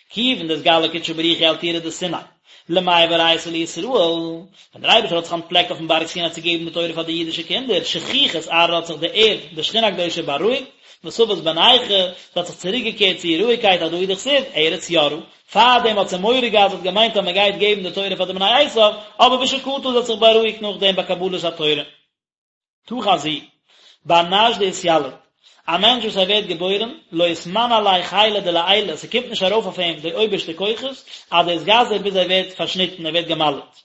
כיוון דאתגלי קודשא בריך הוא על טורא דסיני, למיהב אורייתא לישראל, ווען דער אייבערשטער האט זיך אנטפלעקט אויפן בארג סיני צו געבן די תורה פאר די אידישע קינדער, שכיכת ארעא האט זיך די ערד, די שכינה הקדושה בארואיגט, ותבת בנייחא, זי האט זיך צוריקגעקערט צו איר רואיגקייט הדא הוא דכתיב, ארץ יראה, פארדעם האט זי מורא געהאט, זי האט געמיינט אז מען גייט געבן די תורה פאר די בני עשיו, אבער ושקטה זי האט זיך בארואיגט נאכדעם ביי קבלת התורה. תא חזי, בר נש דאתיליד, א מענטש וואס ער ווערט געבוירן, לא אתמני עליה חילא דלעילא, ס'קומט נישט ארויף אויף אים די אויבערשטע כוחות, עד דאתגזר ביז ער ווערט פארשניטן, ער ווערט גע'מל'ט.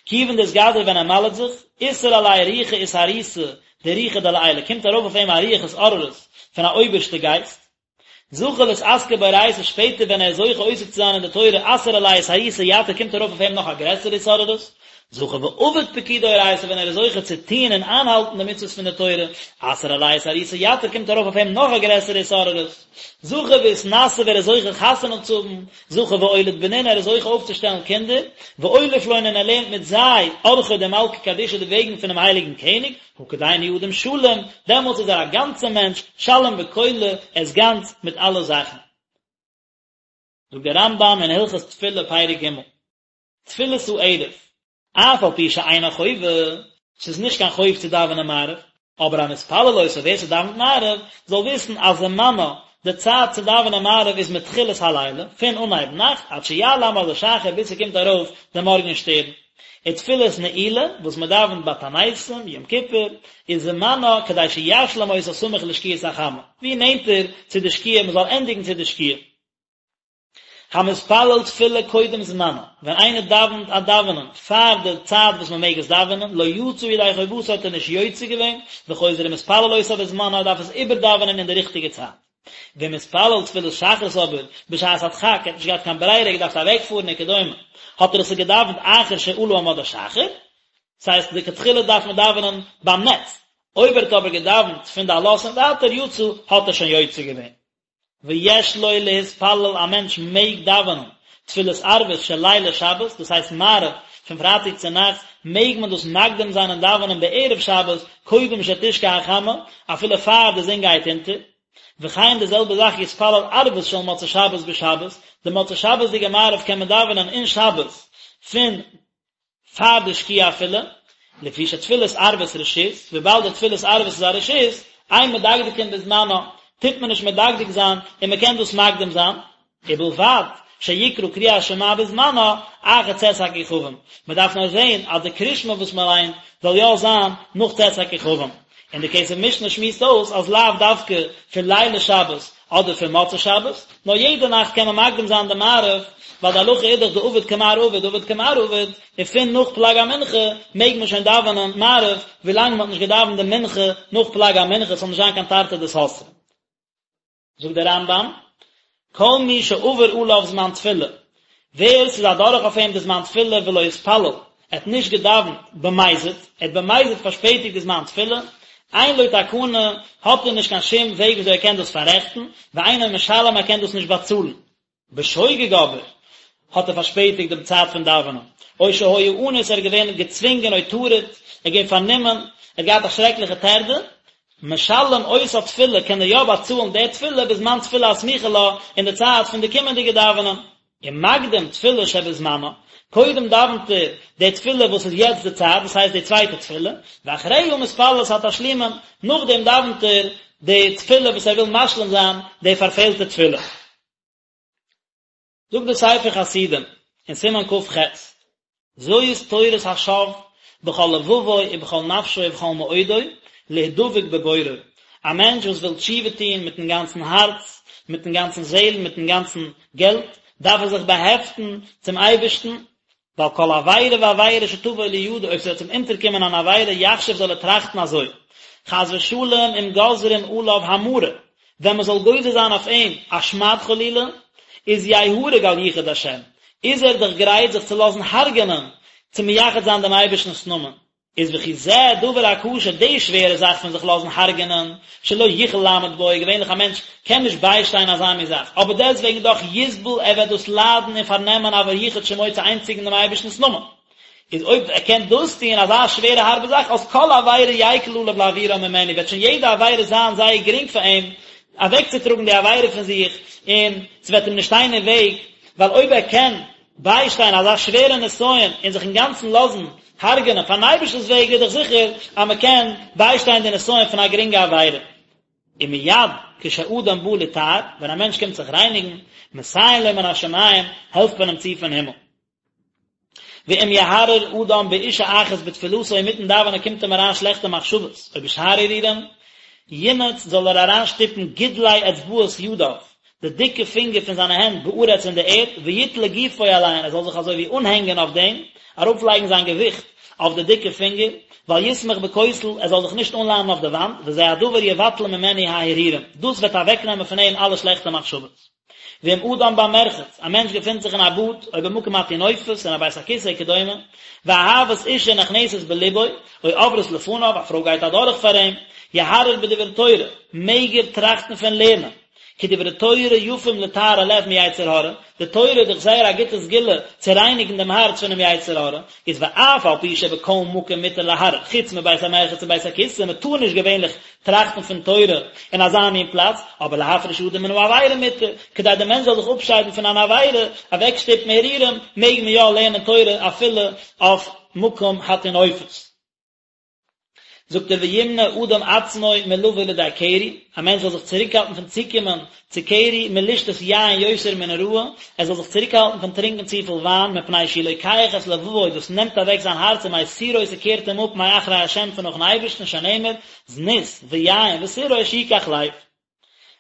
כיוון דאתגזר ווען ער מל'ט זיך, אתער עליה רוחא אתערותא דרוחא דלעילא, קומט ארויף אויף אים א רוח התעוררות פון א אויבערשטע גייסט, זכה לאתעסקא באורייתא שפעטער ווען ער איז זוכה עוסק צו זיין אין די תורה אתער עליה אתערותא יתיר קומט ארויף אויף אים נאך א גרעסערע התעוררות, זכה ועביד פקודי אורייתא ווען ער איז זוכה צו טוהן און איינהאלטן די מצוות פון די תורה, אתער עליה אתערותא יתיר קומט ארויף אויף אים נאך א גרעסערע התעוררות, זכה ואתנשי ווען ער איז זוכה חתונה צו האבן, זכה ואוליד בנין ער איז זוכה אויפצושטעלן קינדער, ואוליף לון און ער לערנט מיט זיי ארחוי דמלכא קדישא די וועגן פונעם הייליגן קעניג, הא כדין הוא אדם שלים, דעמאלטס איז ער א גאנצער מענטש, שלים בכלא, ער איז גאנץ מיט אלע זאכן. זאגט דער רמב"ם אין הלכות תפילה פרק ג', תפילת הערב, אף על פי שאינה חובה, ס'איז נישט קיין חוב צו דאווענען מעריב, אבער המתפלל אותה ווער ס'דאווענט מעריב, זאל וויסן אז זמנה, די צייט צו דאווענען מעריב איז מתחילת הלילה, פון אנהייב נאכט, עד שיעלה עמוד השחר ביז ס'קומט ארויף די מארגן שטערן. ותפילת נעילה, וואס מען דאווענט ביי תעניתים, יום כיפור, איז זמנה כדי שישלים אותה סמוך לשקיעת החמה, ווי נענטער צו די שקיעה מען זאל ענדיגן צו די שקיעה. המתפלל תפילה קודם זמנה, ווען איינער דאווענט א דאווענען פאר די צייט וואס מען מעג עס דאווענען, לא יצא ידי חובתו האט ער נישט יוצא געווען, וחוזר ומתפלל אותה בזמנה ער דארף עס איבערדאווענען אין די ריכטיגע צייט. ואם התפלל תפילת שחרית אבער בשעת הדחק, ער האט נישט געהאט קיין ברירה, ער האט געדארפט אוועקפארן וכדומה, האט ער עס געדאווענט אחר שעלה עמוד השחר, ס'הייסט לכתחילה דארף מען דאווענען ביים נץ, אויב ער האט אבער געדאווענט פון די עלות און ווייטער יצא, האט ער שוין יוצא געווען. ויש לו להתפלל א מענטש מעג דאווענען תפילת ערבית של לילי שבת, דאס הייסט מעריב פון פרייטאג צו נאכטס, מעג מען דאס מקדים זיין און דאווענען בערב שבת קודם שתשקע החמה, אפילו פאר די זון גייט אונטער. וכן די זעלבע זאך יתפלל ערבית של מוצאי שבת בשבת, די מוצאי שבת'דיגע מעריב קען מען דאווענען אין שבת פון פאר די שקיעה אפילו, לפי שתפילת ערבית רשות, וויבאלד די תפילת ערבית איז א רשות, אין מדקדקין בזמנה, טוט מען נישט מדקדק זיין און מען קען דאס מקדים זיין, ובלבד שיקרא קריאת שמע בזמנה אחר צאת הכוכבים, מען דארף נאר זען אז די קריאת שמע וואס מען ליינט זאל יא זיין נאך צאת הכוכבים, און די כסף משנה שמועסט אויס אז לאו דווקא פון לילי שבת אדער פון מוצאי שבת, נאר יעדע נאכט קען מען מקדים זיין די מעריב, ווייל די הלכה איז דאך דעביד כמר עביד דעביד כמר עביד, און פון נאך פלג המנחה מעג מען שוין דאווענען מעריב, ווילאנג מען האט נישט געדאווענט די מנחה נאך פלג המנחה, ס'זאל נישט זיין קיין תרתי דסתרי. זאגט דער רמב"ם, כל מי שעבר עליו זמן תפילה, ווער ס'איז אדורך אויף אים די זמן תפילה ולא התפלל, ער האט נישט געדאווענט במזיד, ער האט במזיד פארשפעטיגט די זמן תפילה, אין לו תקנה, האט ער נישט קיין שום וועג וויאזוי ער קען דאס פאררעכטן, ואינו משלם ער קען דאס נישט באצאלן. בשוגג אבער האט ער פארשפעטיגט דעם צייט פון דאווענען, או שהיה אנוס ער איז געווען געצווינגען או טרוד, ער איז געווען פארנומען, ער האט געהאט א שרעקליכע טרדה, משלם אותה תפילה קען ער יא באצאלן די תפילה בזמן תפילה הסמוכה לה אין די צייט פון די קומענדיגע דאווענען. ומקדים תפילה שבזמנה, קודם דאווענט ער די תפילה וואס איז יעצט די צייט, דאס הייסט די צווייטע תפילה, ואחריה מתפלל את התשלומין, נאכדעם דאווענט ער די תפילה וואס ער וויל משלים זיין די פארפעלטע תפילה. זאגט דער ספר חסידים אין סימן כ"ח. זאת תורת השב בכל לבבו ובכל נפשו ובכל מאודו להדבק בבוראו, א מענטש וואס וויל תשובה טון מיטן גאנצן הארץ, מיטן גאנצן זעהל, מיטן גאנצן געלט, דארף ער זיך באהעפטן צום אייבערשטן, ועל כל עבירה ועבירה שתבוא לידו, אויב ס'וועט אים אונטערקומען אן עבירה, יחשוב זאל ער טראכטן אזוי, חס ושלום אם גוזרים עליו המרה, ווען מ'זאל גוזר זיין אויף אים א שמד חלילה, איז יהרג על יחוד השם, איז ער דאך גרייט זיך צו לאזן הרג'ענען צו מייחד זיין דעם אייבערשטנ'ס נאמען. איז וכי זה דבר הקשה, די שווערע זאך פון זיך לאזן הרג'ענען, שלא יוכל לעמוד בו, געווענליך א מענטש קען נישט ביישטיין אזא מין זאך, אבער דעסטוועגן דאך יסבול, ער וועט דאס ליידן און פארנעמען עבור יחוד שמו צו איינציגן דעם אייבערשטנ'ס נאמען. איז אויב ער קען דאס טון, אזא שווערע הארבע זאך, אז כל עבירה יקל עליו להעבירה ממנו, וועט שוין יעדע עבירה זיין זייער גרינג פאר אים אוועקצוטראגן די עבירה פון זיך, און ס'וועט אים נישט שטיין אין וועג, ווייל אויב ער קען ביישטיין אזא שווערע נסיון און זיך אינגאנצן לאזן הרג'נען פארן אייבערשטנ'ס וועגן איז דאך זיכער אז מען קען ביישטיין די נסיון פון א גרינגע עבירה. ומיד כשאדם בא לטהר, ווען א מענטש קומט זיך רייניגן, מסייעין לו מן השמים, העלפט מען אים צו פון הימל. ואם יהרהר אדם באשה אחת בתפילתו אינמיטן דאווענען קומט אים אריין שלעכטע מחשבות, או בשאר הרהורים, ינעוץ זאל ער אריינשטופן גודלי אצבעות ידיו, די דיקע פינגער פון זיינע הענט בארץ אין די ערד, ויתלה גופו עליהן, ער זאל זיך אזוי ווי אנהענגען אויף דעם, ארויפלייגן זיין געוויכט אויף די דיקע פינגער, ואל יסמוך בכותל, ער זאל זיך נישט אנלאנען אויף די וואנט, וזה הדבר יבטל ממנו ההרהורים, דאס וועט אוועקנעמען פון אים אלע שלעכטע מחשבות. ואם אדם במרחץ, א מענטש געפינט זיך אין א באד, או במקום הטינופת, אין א בית הכסא וכדומה, ואהבת אישה נכנסת בלבו, או עוברת לפניו, א פרוי גייט אדורך פאר אים, יהרהר בדברי תורה, מעג ער טראכטן פון לערנען, כי דברי תורה יפים לטהר הלב מיצר הרע, די תורה איז דאך זייער א גוטע סגולה צו רייניגן דעם הארץ פונעם יצר הרע, איז ואף על פי שבכל מקום מותר להרהר, חוץ מבית המרחץ ובית הכסא, מען טאר נישט געווענליך טראכטן פון תורה אין אזא מין פלאץ, אבער להפריש אדם מן העבירה מותר, כדי דער מענטש זאל זיך אפשיידן פון אן עבירה, אוועקשטופן הרהורים, מעג מען יא לערנען תורה אפילו אויף מקום הטינופת. זאגט ער וימנע אדם עצמו מלבוא לידי קרי, א מענטש זאל זיך צוריקהאלטן פון צוקומען צו קרי, מלשתות יין יותר מן הראוי, ער זאל זיך צוריקהאלטן פון טרינקען צופיל וויין, מפני שהוא לוקח את לבבו, דאס נעמט אוועק זיין הארץ ומסירו ס'קערט אים אפ מאחרי השם פון נאכן אייבערשטן, שנאמר, זנות ויין ותירוש יקח לב.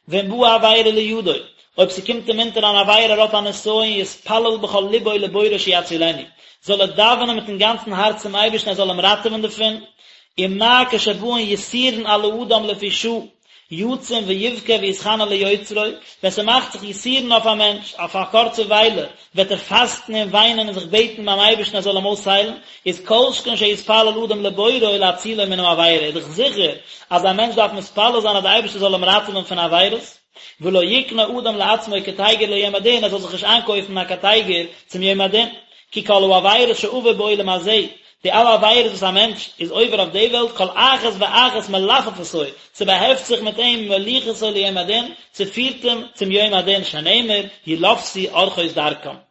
ואם באה עבירה לידו, אויב ס'קומט אים אונטער אן עבירה ער האט א נסיון יתפלל בכל לבו לבוראו שיצילנו, זאל ער דאווענען מיטן גאנצן הארץ צום אייבערשטן ער זאל אים ראטעווען דערפון, ומה כשבאין יסורין על האדם לפי שעה, יצום ויבכה ויתחנן ליוצרו, ווען ס'מאכט זיך יסורין אויף א מענטש, אויף א קורצע וויילע, וועט ער פאסטן און וויינען און זיך בעטן ביים אייבערשטן ער זאל אים אויסהיילן, איז כל שכן שיתפלל אדם לבוראו להצילו מן העבירה, איז דאך זיכער אז א מענטש דארף מתפלל זיין אז דער אייבערשטער זאל אים ראטעווען פון עבירות, ולא יקנה אדם לעצמו קטיגור ליום הדין, ער זאל זיך נישט איינקויפן א קטיגור צום יום הדין, כי כל העבירות שעבר בעולם הזה, די אלע עבירות וואס א מענטש איז עובר אויף די וועלט, כל אחת ואחת מלפפתו, ס'באהעפט זיך מיט אים ומוליכתו ליום הדין, ס'פירט אים צום יום הדין, שנאמר, ילפתו ארחות דרכם.